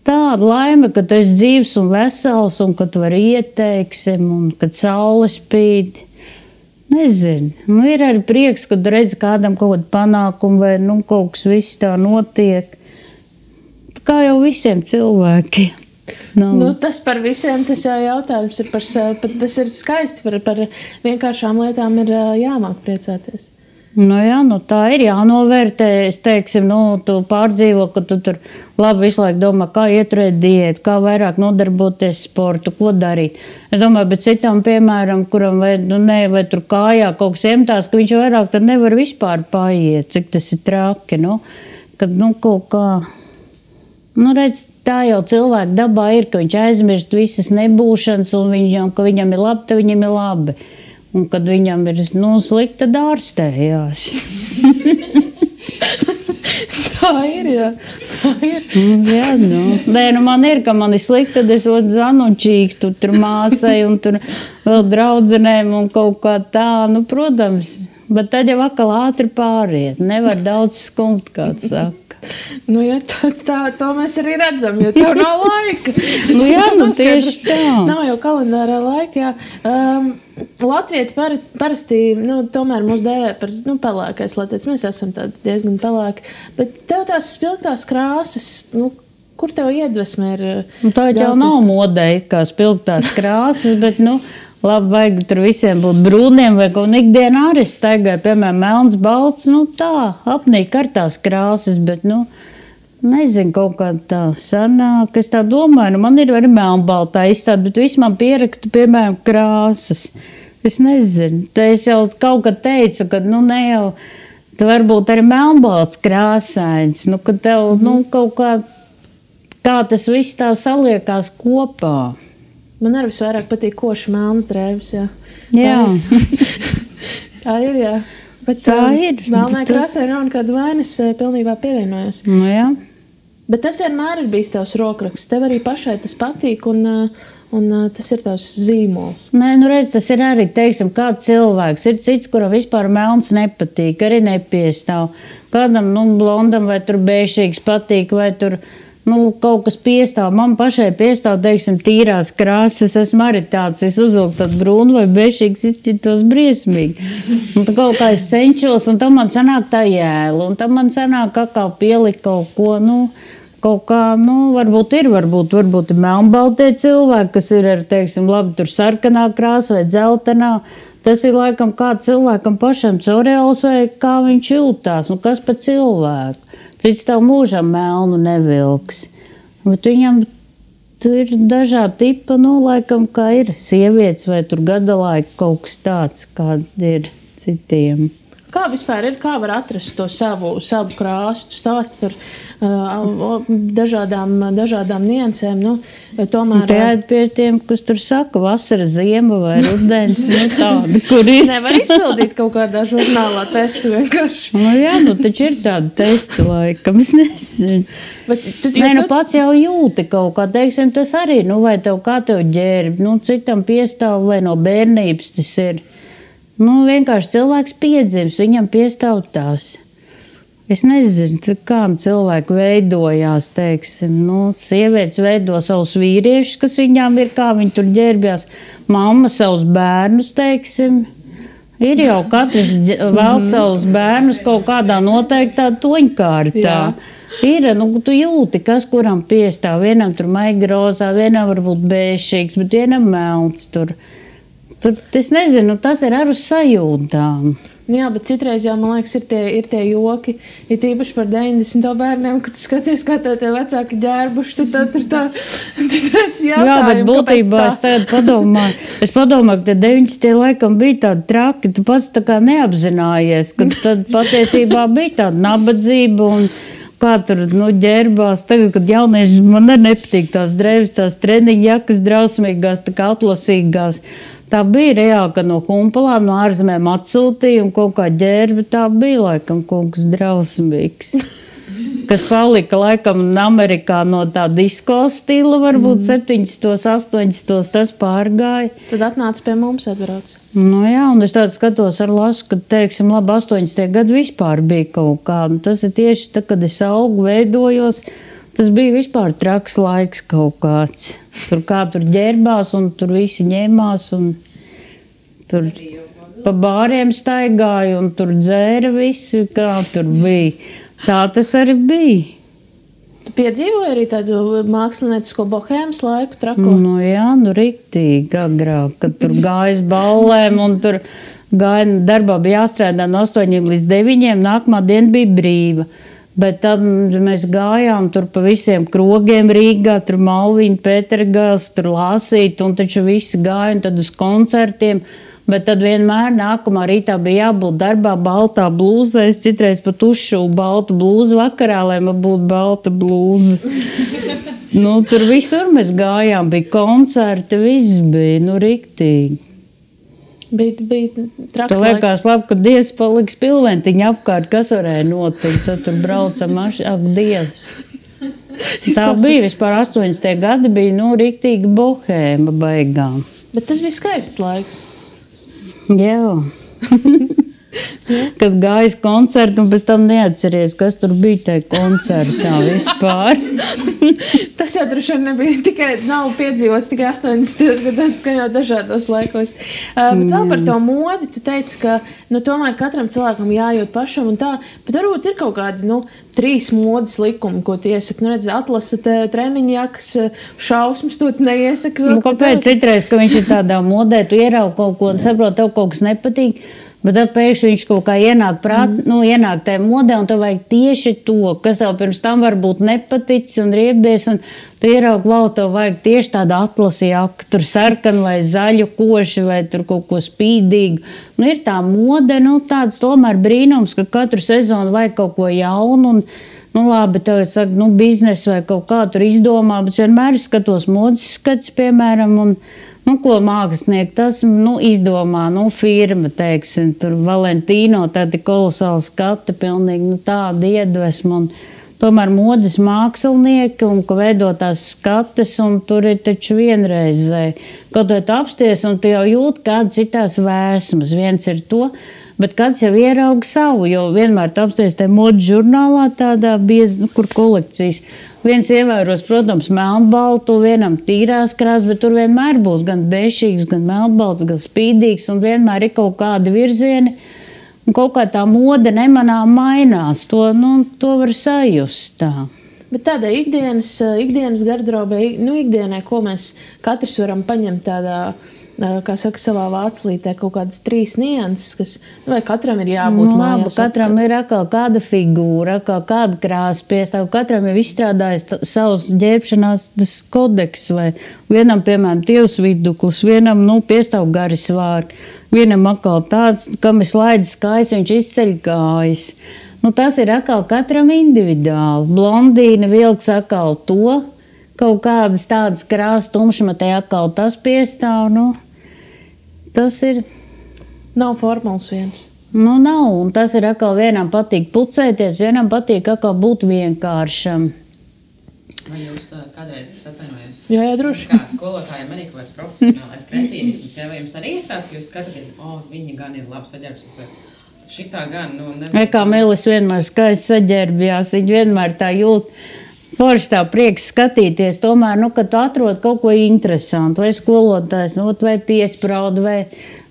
[SPEAKER 2] tāda laime, ka tu esi dzīvs un vesels, un ka tu vari ieteiksim, un kad saule spīd. Nezinu. Nu, ir arī prieks, kad redz kādam kaut kādu panākumu vai kaut kas viss tā notiek. Kā jau visiem cilvēkiem.
[SPEAKER 1] Tas par visiem, tas jau jautājums ir tas ir skaisti, par vienkāršām lietām ir jāmāk priecāties.
[SPEAKER 2] Tā ir jānovērtē. Es teiksim, tu pārdzīvo, ka tu tur labi visu laiku domā, kā ieturēt diētu, kā vairāk nodarboties sportu, ko darīt. Es domāju, bet citam, piemēram, kuram vai tur kājā kaut kas iemtās, ka viņš vairāk tad nevar vispār paiet, cik tas ir traki, kad kaut kā, redz, tā jau cilvēka dabā ir, ka viņš aizmirst visas nebūšanas un ka viņam ir labi, tad viņam ir labi. Un kad viņam ir slikti, tad ārstējās.
[SPEAKER 1] Tā ir, jā. Tā ir.
[SPEAKER 2] Jā, man ir, ka man ir slikti, tad es zvanu čīkstu tur māsai un tur vēl draudzenēm un kaut kā tā. Protams, bet tad jau atkal ātri pāriet. Nevar daudz skumt, kāds saka.
[SPEAKER 1] To mēs arī redzam, jo tev nav laika.
[SPEAKER 2] Tieši tā.
[SPEAKER 1] Nav jau kalendārā laika, jā. Latvieši parasti, tomēr mūs dēvē par pelēkais latvietis. Mēs esam diezgan pelēki. Bet tev tās spilgtās krāsas, kur tev iedvesme ir?
[SPEAKER 2] Tā jau nav modē, kā spilgtās krāsas, bet, labi, vajag tur visiem būt brūniem vai kaut ikdienā arī staigāju, piemēram, melns, balts, tā, apnīk ar tās krāsas, bet, nezinu, kaut kā tā sanāk, es tā domāju, man ir arī melnbaltā izstāde, bet viss man pieraksta, piemēram, krāsas. Es nezinu, tā es jau kaut kad teicu, ka, ne jau, tā varbūt arī melnbalts krāsains, ka tev, kaut kā tas viss tā saliekās kopā.
[SPEAKER 1] Man arī visvairāk patīk koši melns drēbes, jā.
[SPEAKER 2] Jā.
[SPEAKER 1] Tā ir, jā. Bet
[SPEAKER 2] tā ir.
[SPEAKER 1] Melnai krāsai nav nekāda vainas, pilnībā pievienojos.
[SPEAKER 2] Jā.
[SPEAKER 1] Bet tas vienmēr ir bijis tavs rokraksts. Tev arī pašai tas patīk un tas ir tavs zīmols.
[SPEAKER 2] Nē, redz, tas ir arī, teiksim, kāds cilvēks. Ir cits, kuram vispār melns nepatīk, arī nepiestāv. Kādam, blondam vai tur bēšīgs patīk, vai tur... kaut kas piestāv. Man pašai piestāv, teiksim, tīrās krāsas. Esmu arī tāds, es uzvilku tādu brūnu vai bešīgs, izcitos briesmīgi. Un tā kaut kā es cenšos, un tam man sanāk tā jēla, un tam man sanāk kā pielikt kaut ko, kaut kā, varbūt ir melnbaltie cilvēki, kas ir ar, teiksim, labi, tur sarkanā krāsa vai dzeltenā. Tas ir laikam kā cilvēkam pašam cereāls vai kā viņš jūtās, kas pa cilvēku. Cits tev mūžam melnu nevilks. Bet viņam tur ir dažādi tipa, laikam, kā ir sievietes vai tur gadalaika kaut kas tāds, kāda ir citiem.
[SPEAKER 1] Kā vispār ir, kā var atrast to savu krāsu? Tu stāsti par dažādām niansēm, tomēr...
[SPEAKER 2] Tādi pie tiem, kas tur saka, vasara, ziema vai rudens, tādi, kur ir.
[SPEAKER 1] Nevar izpildīt kaut kādā žurnālā testu vienkārši.
[SPEAKER 2] Taču ir tādi testi laikam, es nezinu. Pats jau jūti kaut kā, teiksim, tas arī, vai tev kā tev ģērb, citam piestāv vai no bērnības tas ir. Vienkārši cilvēks piedzims, viņam piestāv tās. Es nezinu, kā cilvēki veidojās, teiksim, sievietes veido savus vīriešus, kas viņām ir, kā viņi tur ģērbjās, mamma savus bērnus, teiksim. Ir jau katrs vēl savus bērnus kaut kādā noteiktā toņkārtā. Ir, tu jūti, kas kuram piestāv, vienam tur maiga rozā, vienam varbūt bēšīgs, bet vienam melns tur. Es nezinu, tas ir ar uz sajūtām.
[SPEAKER 1] Jā, bet citreiz jau, man liekas, ir tie joki, ir tīpaši par 90. bērniem, kad tu skaties, kā tie vecāki ģērbuši, tad tur tā citreiz jautājumi,
[SPEAKER 2] jā, bet būtībā es tagad padomāju, ka 90. laikam bija tādi traki, tu pats tā kā neapzinājies, ka tad patiesībā bija tāda nabadzība un kā tur ģērbās. Tagad, kad jaunieši, man arī nepatīk tās drēbes, tās treniņu jakas drausmīgās, tā kā atlasīgās. Tā bija reāli, ka no kumpalām, no ārzemēm atsūtīja un kaut kā ģērba. Tā bija laikam kaut kas drausmīgs. Kas palika laikam Amerikā no tā disko stila, varbūt 70. 80. tas pārgāja.
[SPEAKER 1] Tad atnāca pie mums atbrauc.
[SPEAKER 2] Jā, un es tādu skatos ar lasu, ka, teiksim, labi, 80. gadu vispār bija kaut kā. Tas ir tieši tā, kad es augu, veidojos. Tas bija vispār traks laiks kaut kāds. Tur kā tur ģērbās un tur visi ņēmās un Tur pa bāriem staigāja un tur dzēra visi, kā tur bija. Tā tas arī bija.
[SPEAKER 1] Tu piedzīvoji arī tādu māksliniecisko bohēmas laiku trako?
[SPEAKER 2] Nu jā, nu riktīgi agrāk, kad tur gājas ballēm un tur gāja, darbā bija jāstrādā no 8 līdz 9, nākamā diena bija brīva. Bet tad mēs gājām tur pa visiem krogiem Rīgā, tur Malviņa, Pētergāls, tur Lāsīt, un taču visi gāja un tad uz koncertiem. Bet tad vienmēr nākamā rītā bija jābūt darbā baltā blūzē. Es citreiz pat uzšuvu baltu blūzu vakarā, lai man būtu balta blūza. Nu, tur visur mēs gājām, bija koncerti, viss bija, nu, riktīgi.
[SPEAKER 1] Bija traks
[SPEAKER 2] laiks. Liekas labi, ka Dievs paliks pilventiņa apkārt, kas varēja notikt. Tad tur brauca ak, Dievs. Tā bija vispār 80. gadi, bija, nu, riktīgi bohēma baigām.
[SPEAKER 1] Bet tas bija skaists laiks.
[SPEAKER 2] Jā. Kad gājas koncertu un pēc tam neatceries, kas tur bija tajā koncertā vispār.
[SPEAKER 1] Tas jau droši vien nebija tikai, nav piedzīvots tikai 80. gados, ka jau dažādos laikos. Bet vēl par to modi, tu teici, ka nu, tomēr katram cilvēkam jājūt pašam un tā, bet varbūt ir kaut kādi, 3 modes likumi, ko tu iesaki. Nu, redz, atlasat treniņjakas, šausmas, tu neiesaki.
[SPEAKER 2] Kāpēc citreiz, ka viņš ir tādā modē, tu ieraugi kaut ko un saproti, tev kaut kas nepatīk, bet tad pēkšņi viņš kaut kā ienāk ienāk tajā modē, un tev vajag tieši to, kas tev pirms tam varbūt nepaticis un riebies, un tu ieraugi, tev vajag tieši tādu atlasi jaku, tur sarkanu vai zaļu koši, vai tur kaut ko spīdīgu. Nu, ir tā mode, tāds tomēr brīnums, ka katru sezonu vajag kaut ko jaunu, un labi, tev saka, biznesu vai kaut kā tur izdomā, bet vienmēr skatos modes skats, piemēram, un ko mākslinieki tas izdomā, firma, teiksim, tur Valentīno, tādi kolosāli skati, pilnīgi tāda iedvesma, un tomēr modes mākslinieki, un ka veido tās skates, un tur ir taču vienreizēji. Kaut vai tu apsties, un tu jau jūti kādas citās vēsmas, viens ir to, bet kāds jau ierauga savu, jo vienmēr tu apsties tajā modes žurnālā tādā biezi, kur kolekcijas. Viens ievēros, protams, melnbaltu, vienam tīrās krāsas, bet tur vienmēr būs gan bešīgs, gan melnbalts, gan spīdīgs, un vienmēr ir kaut kādi virzieni, un kaut kā tā mode nemanām mainās. To var sajust tā.
[SPEAKER 1] Bet tādai ikdienas garderobē, ikdienai, ko mēs katrs varam paņemt tādā, kā saka, savā vāclītē, kaut kādas 3 nianses, kas, vai katram ir jābūt mājās.
[SPEAKER 2] Katram ir atkal kāda figūra, atkal kāda krāsa piestāv, katram ir izstrādājis savus ģērbšanās kodeks, vai vienam, piemēram, tievs viduklis, vienam, piestāv gari svārki, vienam atkal tāds, kam ir slaidas kājas, viņš izceļ kājas. Tas ir atkal katram individuāli. Blondīna vilks atkal to, kaut kādas tādas krāsas tumšmatē atkal tas piestāv, tas ir.
[SPEAKER 1] Nav formulas viens.
[SPEAKER 2] Nav, un tas ir atkal vienam patīk pucēties, vienam patīk atkal būt vienkāršam.
[SPEAKER 3] Vai jūs kādreiz atvainojos?
[SPEAKER 1] Jā, droši.
[SPEAKER 3] Kā skolotājiem arī kaut kāds profesionālais kretīnisms, vai jums arī ir tāds, ka jūs skatāties, viņi gan ir labs saģērbs, vai šitā gan, nevar.
[SPEAKER 2] Kā Melis vienmēr skaisti saģērbjās, viņi vienmēr tā jūt. Forši tā prieks skatīties, tomēr, kad tu atrod kaut ko interesantu, vai skolotājs, vai piespraudu, vai,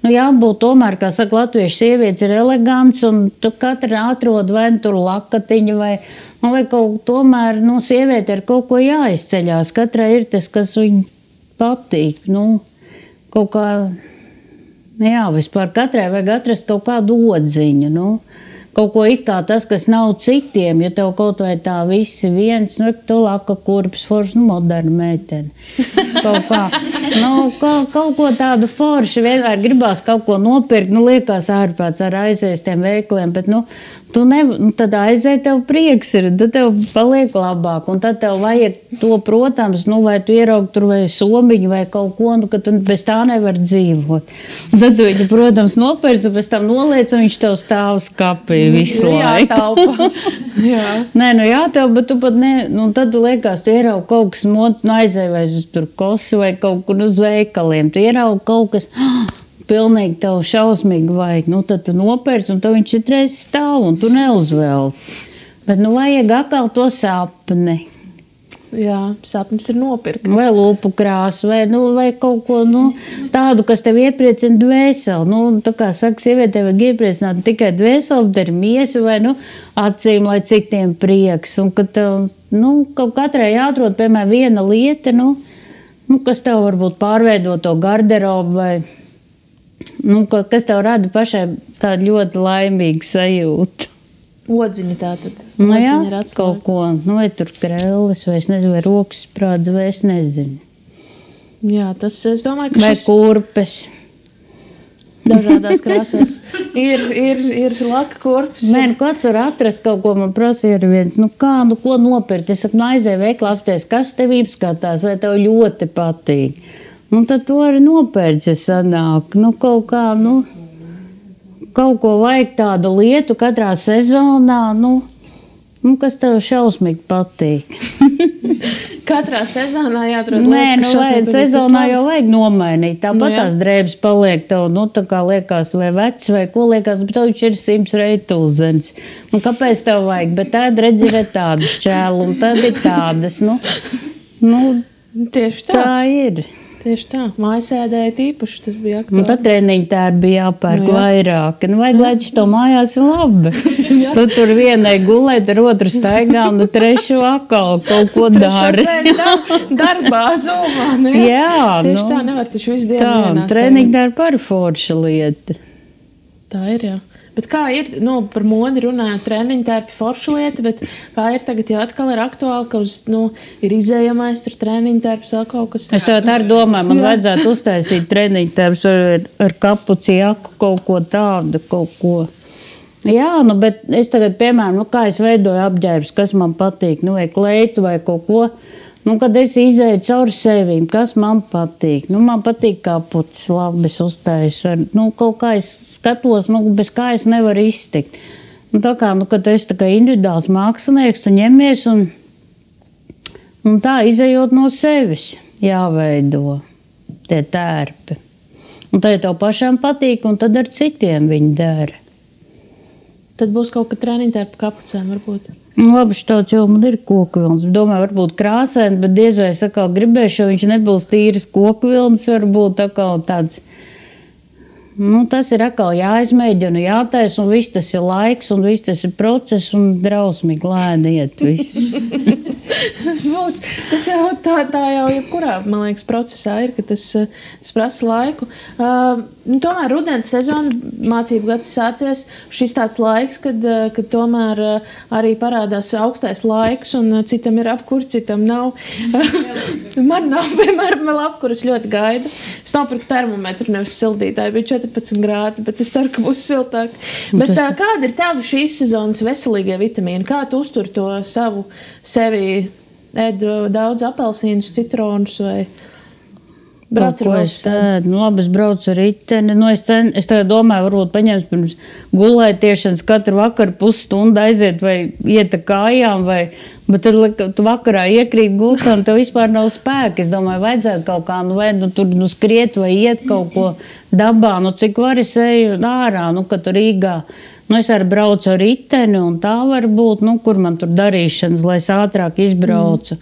[SPEAKER 2] jābūt tomēr, kā saka, latviešu sievietes ir elegants, un tu katra atrod vai tur lakatiņu, vai kaut tomēr, sieviete ar kaut ko jāizceļās, katrai ir tas, kas viņai patīk, kaut kā, vispār katrai vajag atrast kaut kādu odziņu, kaut ko it kā tas, kas nav citiem, ja tev kaut vai tā visi viens, tu laka kurpes, forši, moderna meitene. Kaut kā, kaut ko tādu forši, vienmēr gribās kaut ko nopirkt, liekas ārpēc ar aizies tiem veikliem, bet, tad aiziet tev prieks ir, tad tev paliek labāk, un tad tev vajag to, protams, vai tu ieraugi tur vai somiņu vai kaut ko, ka tu bez tā nevar dzīvot. Un tad tu viņu, protams, nopirks, un pēc tam noliec, un viņš tev stāv skapī visu laiku. Nē, jātaupa, bet tu pat ne, tad tu liekas, tu ieraugi kaut kas mods, aizēj vai uz tur kosi vai kaut kur uz veikaliem, tu ieraugi kaut kas, pilnīgi tev šausmīgi vajag, tad tu nopērci, un tad viņš citreiz stāv, un tu neuzvelc. Bet, vajag atkal to sapni.
[SPEAKER 1] Jā, sapnis ir nopirkt.
[SPEAKER 2] Vai lūpu krāsu, vai kaut ko tādu, kas tev iepriecina dvēseli. Tā kā saka, sievietē vajag iepriecināt tikai dvēseli, bet ir miesa vai acīm, lai citiem prieks. Un ka tev, kaut katrai jāatrod, piemēram, viena lieta, kas tev varbūt pārveido to garderobu vai, kas tev rada pašai tādu ļoti laimīgu sajūtu.
[SPEAKER 1] Odziņa tātad.
[SPEAKER 2] Jā, kaut ko, vai tur krēlis, vai es nezinu, vai rokas sprādz, vai es nezinu.
[SPEAKER 1] Jā, tas, es domāju, ka
[SPEAKER 2] vai kurpes.
[SPEAKER 1] Dažādās krāsās. Ir laka kurpes.
[SPEAKER 2] Kāds var atrast kaut ko, man prasīja arī viens, ko nopirkt? Es saku, aizēju veiklā apties, kas tev izskatās, vai tev ļoti patīk. Tad to arī nopērts, ja sanāk. Kaut ko vajag tādu lietu katrā sezonā, kas tev šausmīgi patīk.
[SPEAKER 1] Katrā sezonā jāatrod lietu,
[SPEAKER 2] kas sezonā jau vajag nomainīt. Tāpat tās drēbes paliek tev, tā kā liekas, vai vecs, vai ko liekas, bet tev ir 100 reitulzens. Kāpēc tev vajag? Bet tad redzi, ir tādas šķēlu, un tad ir tādas,
[SPEAKER 1] Tieši tā.
[SPEAKER 2] Tā ir.
[SPEAKER 1] Tieši tā, mājasēdēja tīpaši, tas bija aktuāli.
[SPEAKER 2] Tad treniņi tērbi bija jāpērk vairāk. Vajag, lai to mājās ir labi. Tu tur vienai gulēt, ar otru staigā, un trešu atkal kaut ko dari.
[SPEAKER 1] Darbā, zumā.
[SPEAKER 2] Jā,
[SPEAKER 1] tieši tā, nevar taču visu dienu vienā
[SPEAKER 2] staigā. Treniņi tērbi par forša lieta.
[SPEAKER 1] Tā ir, jā. Bet kā ir, par modi runājot, treniņi tērpi forša lieta, bet kā ir tagad jau atkal ir aktuāli, ka ir izējamais tur treniņi tērps vēl kaut kas.
[SPEAKER 2] Es tev tā domāju, man vajadzētu uztaisīt treniņi tērps ar kapuci jaku, kaut ko tādu, kaut ko. Jā, bet es tagad, piemēram, kā es veidoju apģērbus, kas man patīk, vai kleitu vai kaut ko. Kad es izēju cauri sevīm, kas man patīk? Man patīk kapucis, labi, es uztaisu. Kaut kā es skatos, bez kā es nevaru iztikt. Tā kā, kad tu esi tā kā individuāls mākslinieks, tu ņemies un tā izējot no sevis jāveido tie tērpi. Un tad tev pašām patīk, un tad ar citiem viņi dara.
[SPEAKER 1] Tad būs kaut kā treniņi tērpi kapucēm varbūt.
[SPEAKER 2] Labi, tāds jau man ir koku vilns. Domāju, varbūt krāsaini, bet diez vai es atkal gribēšu, jo viņš nebūs tīras koku vilns, varbūt atkal tāds. Tas ir atkal jāizmēģina, jātaisa, un viss tas ir laiks, un viss tas ir process, un drausmīgi lēni iet viss.
[SPEAKER 1] Tas jau tā jau jebkurā, man liekas, procesā ir, ka tas prasa laiku. Tomēr rudens sezona, mācību gads sācies, šis tāds laiks, kad tomēr arī parādās augstais laiks, un citam ir apkur, citam nav. Man nav, piemēram, vēl apkuras ļoti gaida. Es nopirku termometru, nevis sildītāju, bija 14 grādi, bet es ceru, ka būs siltāk. Bet kāda ir tava šīs sezonas veselīgie vitamīni? Kā tu uztur to savu sevi? Ēd daudz apelsīnus, citronus vai brauc ar velosipēdu?
[SPEAKER 2] Labi, es braucu ar riteni. Es tagad domāju, varbūt paņemt pirms gulētiešanas katru vakaru pusstundu aiziet vai iet ar kājām, bet tad tu vakarā iekrīt gultā un tev vispār nav spēka. Es domāju, vajadzētu kaut kā, vai tur skriet vai iet kaut ko dabā, cik var es eju ārā, kad tur Rīgā. Es arī braucu ar riteni, un tā var būt, kur man tur darīšanas, lai es ātrāk izbraucu.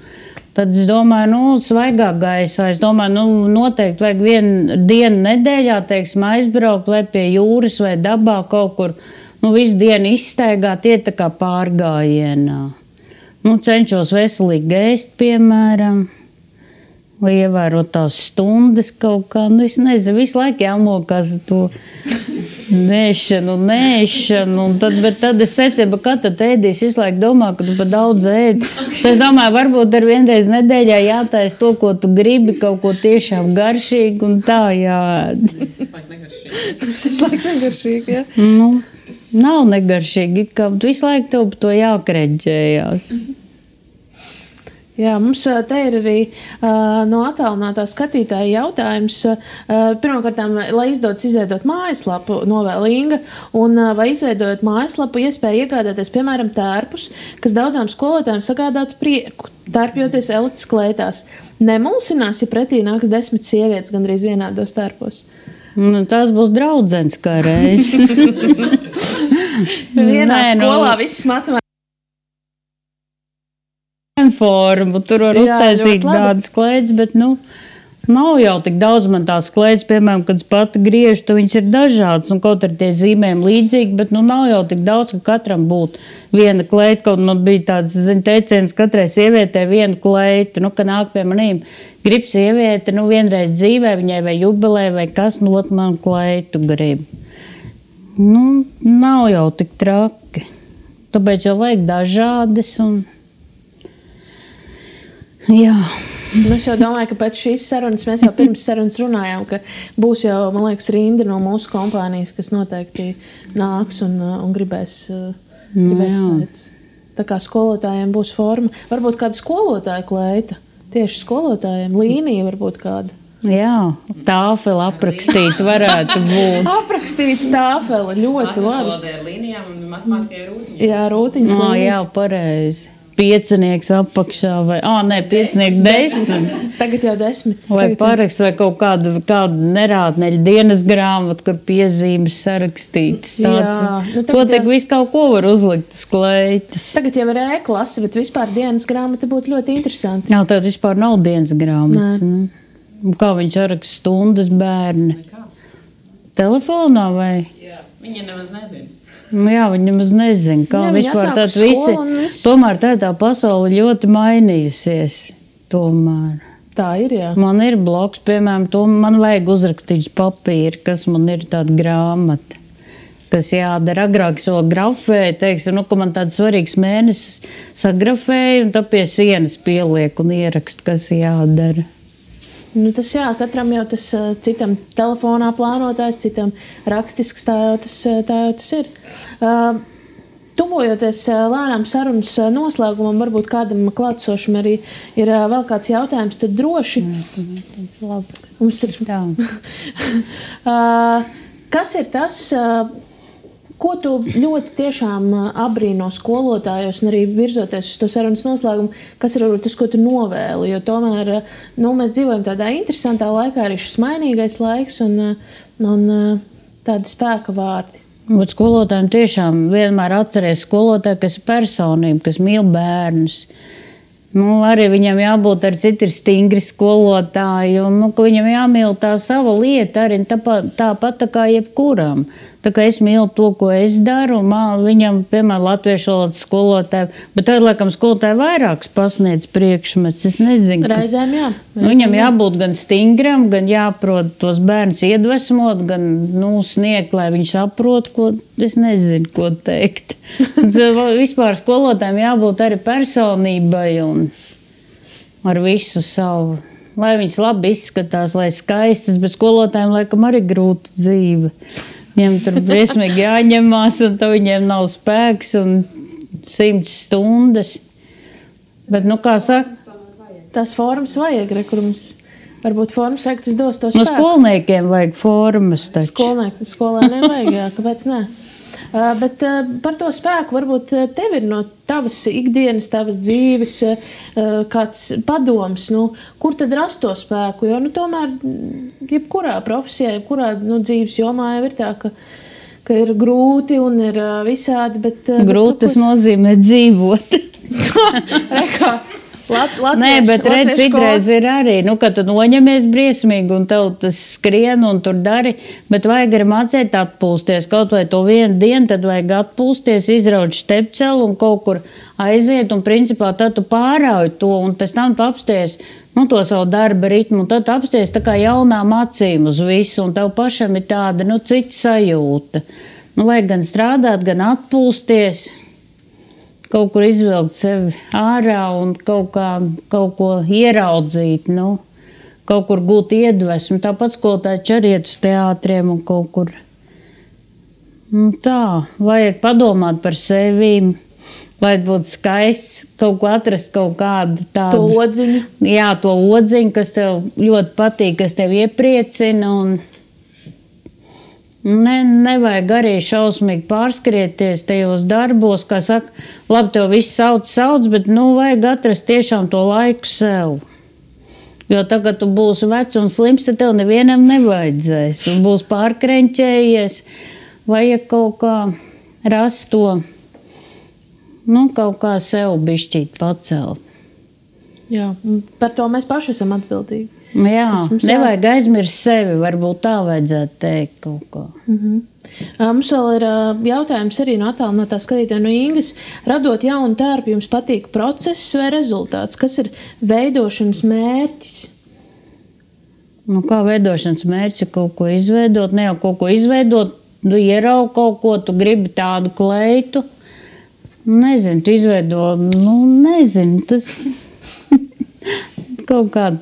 [SPEAKER 2] Tad es domāju, svaigā gaisā. Es domāju, noteikti vajag vienu dienu nedēļā, teiksim, aizbraukt vai pie jūras vai dabā kaut kur. Visu dienu izstaigāt, iet tā kā pārgājienā. Cenšos veselīgi ēst, piemēram. Vai ievērot tās stundas kaut kā. Es nezinu, visu laiku jāmokās to nēšanu, bet tad es secinu, ka tad ēdīs visu laiku domā, ka tu pa daudz ēdi. Tad es domāju, varbūt ar vienreiz nedēļā jātaisa to, ko tu gribi, kaut ko tiešām garšīgi un tā jāēd.
[SPEAKER 1] Tas visu laiku negaršīgi, jā?
[SPEAKER 2] Nav negaršīgi, kā visu laiku tev par to jākreģējās.
[SPEAKER 1] Jā, mums te ir arī no attālinātā skatītāja jautājums. Pirmkārt, lai izdodas izveidot mājaslapu, novēl Inga, un vai izveidojot mājaslapu, iespēja iegādāties, piemēram, tērpus, kas daudzām skolotājiem sagādātu prieku, tērpjoties elites klētās. Nemulsinās, ja pretī nāks 10 sievietes gandrīz vienādos tērpos.
[SPEAKER 2] Tās būs draudzens kā reiz.
[SPEAKER 1] Vienā skolā viss matemātikas.
[SPEAKER 2] formu, tur var uztaisīt tādas kleitas, bet, nav jau tik daudz man tās kleitas, piemēram, kad es pati griežu, tad viņas ir dažādas, un kaut ar tie zīmēm līdzīgi, bet, nav jau tik daudz, ka katram būtu viena kleita, kaut man bija tāds, teiciens, katrai sievietē vienu kleitu, ka nāk pie manīm, grib sieviete, vienreiz dzīvē, viņai vai jubilē, vai kas, ot man kleitu grib. Nav jau tik traki, tāpēc jau vajag dažādas, un jā.
[SPEAKER 1] Es jau domāju, ka pēc šīs sarunas mēs jau pirms sarunas runājām, ka būs jau, man liekas, rinda no mūsu kompānijas, kas noteikti nāks un gribēs pēc. Tā kā skolotājiem būs forma. Varbūt kāda skolotāja kleita. Tieši skolotājiem. Līnija varbūt kāda.
[SPEAKER 2] Jā, tāfeli aprakstīt varētu būt.
[SPEAKER 1] Aprakstīt tāfeli. Ļoti labi.
[SPEAKER 3] Latviešu ar līnijām un matemātikai rūtiņas.
[SPEAKER 1] Jā, rūtiņas līnijas.
[SPEAKER 2] Jā, pareizi. Piecinieks apakšā vai, piecinieks 10.
[SPEAKER 1] Tagad jau 10.
[SPEAKER 2] Vai paraksts vai kaut kāda nerātneļa dienas grāmata, kur piezīmes sarakstītas. Ko tik visu kaut ko var uzlikt uz kleitas.
[SPEAKER 1] Tagad jau ir E-klase, bet vispār dienas grāmata būtu ļoti interesanti.
[SPEAKER 2] Jā, tad vispār nav dienas grāmatas. Kā viņš saraksta stundas bērni? Telefonā vai?
[SPEAKER 3] Jā, viņa nemaz nezina.
[SPEAKER 2] Jā, viņi nemaz nezina, kā vispār tāda visi. Tomēr tā pasaule ļoti mainījusies. Tomēr.
[SPEAKER 1] Tā ir, jā.
[SPEAKER 2] Man ir bloks, piemēram, man vajag uzrakstīt papīru, kas man ir tāda grāmata, kas jādara. Agrāk es vēl grafēju, teiksim, ka man tāds svarīgs mēnesis sagrafēju, un tad pie sienas pieliek un ierakstu, kas jādara.
[SPEAKER 1] Tas jā, katram jau tas citam telefonā plānotājs, citam rakstisks, tā jau tas ir. Tuvojoties lēnām sarunas noslēgumam, varbūt kādam klātsošam arī ir vēl kāds jautājums, tad droši. Mums ir
[SPEAKER 2] tā.
[SPEAKER 1] Kas ir tas, ko tu ļoti tiešām abrīno skolotājos un arī virzoties uz to sarunas noslēgumu, kas ir tas, ko tu novēli? Jo tomēr mēs dzīvojam tādā interesantā laikā, arī šis mainīgais laiks un tādi spēka vārdi.
[SPEAKER 2] Bet skolotājiem tiešām vienmēr atceries skolotāju, kas ir personība, kas mīl bērnus. Arī viņam jābūt ar citi stingri skolotāji, un ka viņam jāmīl tā sava lieta arī tāpat tā kā jebkuram. Tā kā es mīlu to, ko es daru, viņam, piemēram, latviešu valodas skolotāji, bet tad, laikam, skolotāji vairākas pasniedz priekšmets, es nezinu.
[SPEAKER 1] Reizēm, jā.
[SPEAKER 2] Viņam jābūt gan stingram, gan jāprot tos bērnus iedvesmot, gan, sniegt, lai viņi saprot, ko, es nezinu, ko teikt. Vispār skolotājiem jābūt arī personībai un ar visu savu, lai viņas labi izskatās, lai skaistas, bet skolotājiem, laikam, arī grūta dzīve. Viņiem tur briesmīgi jāņemās, un tad viņiem nav spēks un 100 stundas. Bet, kā saka?
[SPEAKER 1] Tās formas vajag, kur mums varbūt formas vajag, tas dos to spēku.
[SPEAKER 2] Skolniekiem vajag formas taču.
[SPEAKER 1] Skolēniem vajag, jā, kāpēc ne? Bet par to spēku varbūt tev ir no tavas ikdienas, tavas dzīves kāds padoms, kur tad rast to spēku, jo tomēr jebkurā profesijā, jebkurā dzīves jomā jau ir tā, ka ir grūti un ir visādi, bet...
[SPEAKER 2] Grūti tas nozīmē dzīvot. Nē, bet redz, citreiz ir arī, kad tu noņemies briesmīgi un tev tas skrien un tur dari, bet vajag arī mācēt atpūsties. Kaut vai to vienu dienu, tad vajag atpūsties, izraut štepcelu un kaut kur aiziet un principā tad tu pārauj to un pēc tam tu apsties to savu darba ritmu un tad tu apsties tā kā jaunām acīm uz visu un tev pašam ir tāda, cita sajūta. Vajag gan strādāt, gan atpūsties. Kaut kur izvilkt sevi ārā un kaut ko ieraudzīt, kaut kur gūt iedvesmu. Tāpat skolotāji arī iet uz teātriem un kaut kur. Tā, vajag padomāt par sevi, vajag būt skaists, kaut ko atrast, kaut kādu tādu.
[SPEAKER 1] To odziņu.
[SPEAKER 2] Jā, to odziņu, kas tev ļoti patīk, kas tev iepriecina un... Nevajag arī šausmīgi pārskrieties tajos darbos, kā saka, labi, tev viss sauc, bet vajag atrast tiešām to laiku sev. Jo tagad tu būsi vecs un slims, tad tev nevienam nevajadzēs. Tu būsi pārkreņķējies, vajag kaut kā rast to, kaut kā sev bišķīt pacelt.
[SPEAKER 1] Jā, par to mēs paši esam atbildīgi.
[SPEAKER 2] Jā, nevajag aizmirst sevi, varbūt tā vajadzētu teikt kaut ko.
[SPEAKER 1] Mums vēl ir jautājums arī no attālinātā skatītāja no Ingas. Radot jaunu tērpu, jums patīk process vai rezultāts? Kas ir veidošanas mērķis?
[SPEAKER 2] Nu, kā veidošanas mērķis ir kaut ko izveidot, ne jau kaut ko izveidot, tu ieraugi kaut ko, tu gribi tādu kleitu. Nezinu, tu izveido, tas kaut kāda.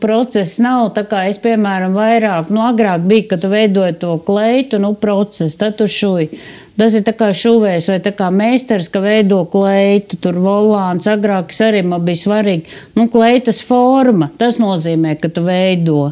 [SPEAKER 2] Process nav tā kā es, piemēram, vairāk, agrāk bija, kad tu veidoji to kleitu, process, tad tu šuji. Tas ir tā kā šuvējs vai tā kā meistars, ka veido kleitu, tur volāns, agrāk arī man bija svarīgi. Kleitas forma, tas nozīmē, ka tu veido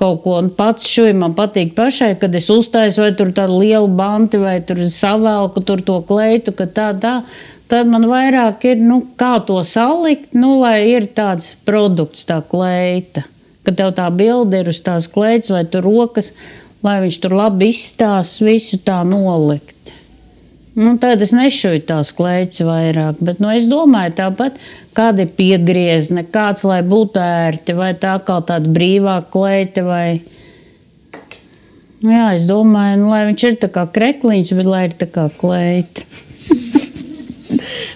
[SPEAKER 2] kaut ko, un pats šuji man patīk pašai, kad es uztaisu vai tur tādu lielu banti vai tur savelku tur to kleitu, ka tā. Tad man vairāk ir, kā to salikt, lai ir tāds produkts, tā kleita. Kad tev tā bilde ir uz tās kleitas vai tur rokas, lai viņš tur labi izstās, visu tā nolikt. Tad es nešuju tās kleitas vairāk, bet es domāju tāpat, kāda ir piegriezne, kāds, lai būtu ērti, vai tā kā tāda brīvā kleita, vai... Jā, es domāju, lai viņš ir tā kā krekliņš, bet lai ir tā kā kleita.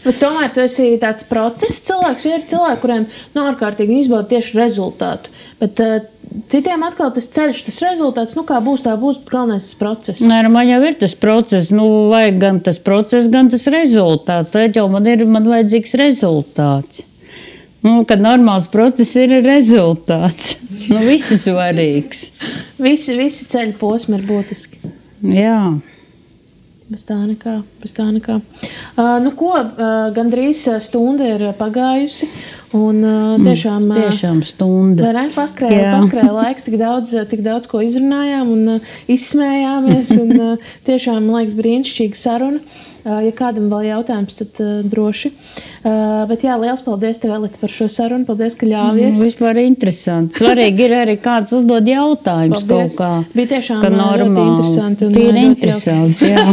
[SPEAKER 1] Bet tomēr tu esi tāds process cilvēks, jo ir cilvēki, kuriem ārkārtīgi izbauda tieši rezultātu. Bet citiem atkal tas ceļš, tas rezultāts, kā būs, tā būs, bet galvenais tas process.
[SPEAKER 2] Nē, man jau ir tas process, vajag gan tas process, gan tas rezultāts. Tad jau man vajadzīgs rezultāts. Kad normāls process ir rezultāts. Viss ir svarīgs.
[SPEAKER 1] Visi ceļu posmi ir būtiski.
[SPEAKER 2] Jā.
[SPEAKER 1] Bez tā nekā. Gandrīz stunda ir pagājusi, un
[SPEAKER 2] tiešām stunda.
[SPEAKER 1] Vai ne? Paskrēja laiks, tik daudz ko izrunājām un izsmējāmies, un tiešām, man liekas, brīnišķīga saruna. Ja kādam vēl jautājums, tad droši. Bet jā, liels paldies tev, Elita, par šo sarunu. Paldies, ka ļāvies.
[SPEAKER 2] Vispār interesanti. Svarīgi ir arī kāds uzdod jautājumus kaut kā.
[SPEAKER 1] Bija tiešām ļoti interesanti.
[SPEAKER 2] Tīri interesanti, jā.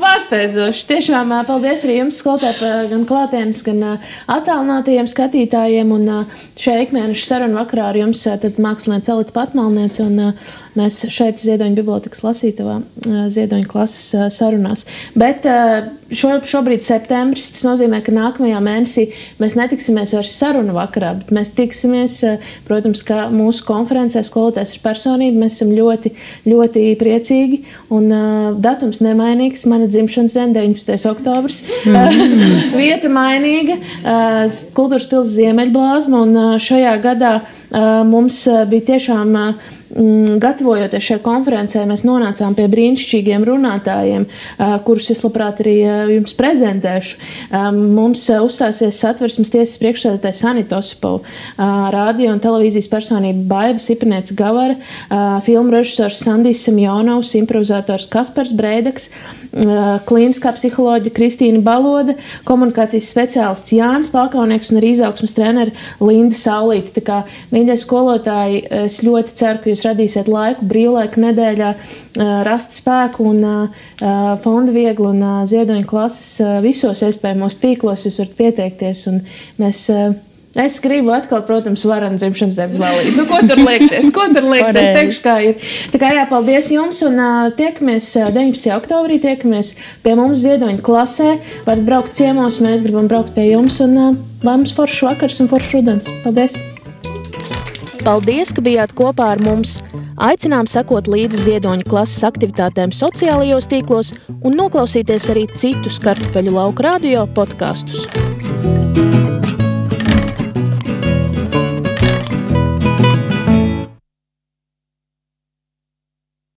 [SPEAKER 1] Pārsteidzoši. Tiešām paldies arī jums, skolotāji, gan klātienes, gan attālinātajiem skatītājiem. Un šajā ikmēneša sarunu vakarā ar jums tad māksliniece Elita Patmalniece, un mēs šeit Ziedoņa bibliotekas lasītavā Ziedoņa klases sarunās. Bet šobrīd septembris, tas nozīmē, ka nākamajā mēnesī mēs netiksimies vairs sarunu vakarā, bet mēs tiksimies, protams, kā mūsu konferencē skolotājs ir personība, mēs esam ļoti, ļoti priecīgi, un datums nemainīgs, mana dzimšanas diena 19. oktobris, vieta mainīga, Kultūras pils Ziemeļblāzma, un šajā gadā mums bija tiešām gatavojoties šai konferencē, mēs nonācām pie brīnišķīgiem runātājiem, kurus es labprāt arī jums prezentēšu. Mums uzstāsies Satversmes tiesas priekšsēdētājs Sanita Osipova, radio un televīzijas personība Baiba Sipanieca Gavara, filmu režisors Sandijs Semjonovs, improvizators Kaspars Breidaks, klīniskā psiholoģa Kristīna Baloda, komunikācijas speciālists Jānis Palkaunieks un arī izaugsmes treneri Linda Saulīte. Tā kā, mīļie skolotāji, es ļoti ceru, ka jūs radīsiet laiku, brīvlaiku nedēļā, rast spēku un Fonda Viegla un Ziedoņa klases visos iespējamos tīklos jūs varat pieteikties. Un es gribu atkal, protams, varanu dzimšanas dienas balīti. Ko tur liekties? Teikšu, kā ir. Tā kā jā, paldies jums un tiekamies 19. oktobrī, tiekamies pie mums Ziedoņa klasē. Varat braukt ciemos, mēs gribam braukt pie jums un lai mums foršs vakars un foršs rudens. Paldies! Paldies, ka bijāt kopā ar mums! Aicinām sekot līdzi Ziedoņa klases aktivitātēm sociālajos tīklos un noklausīties arī citus Kartupeļu lauka radio podkastus.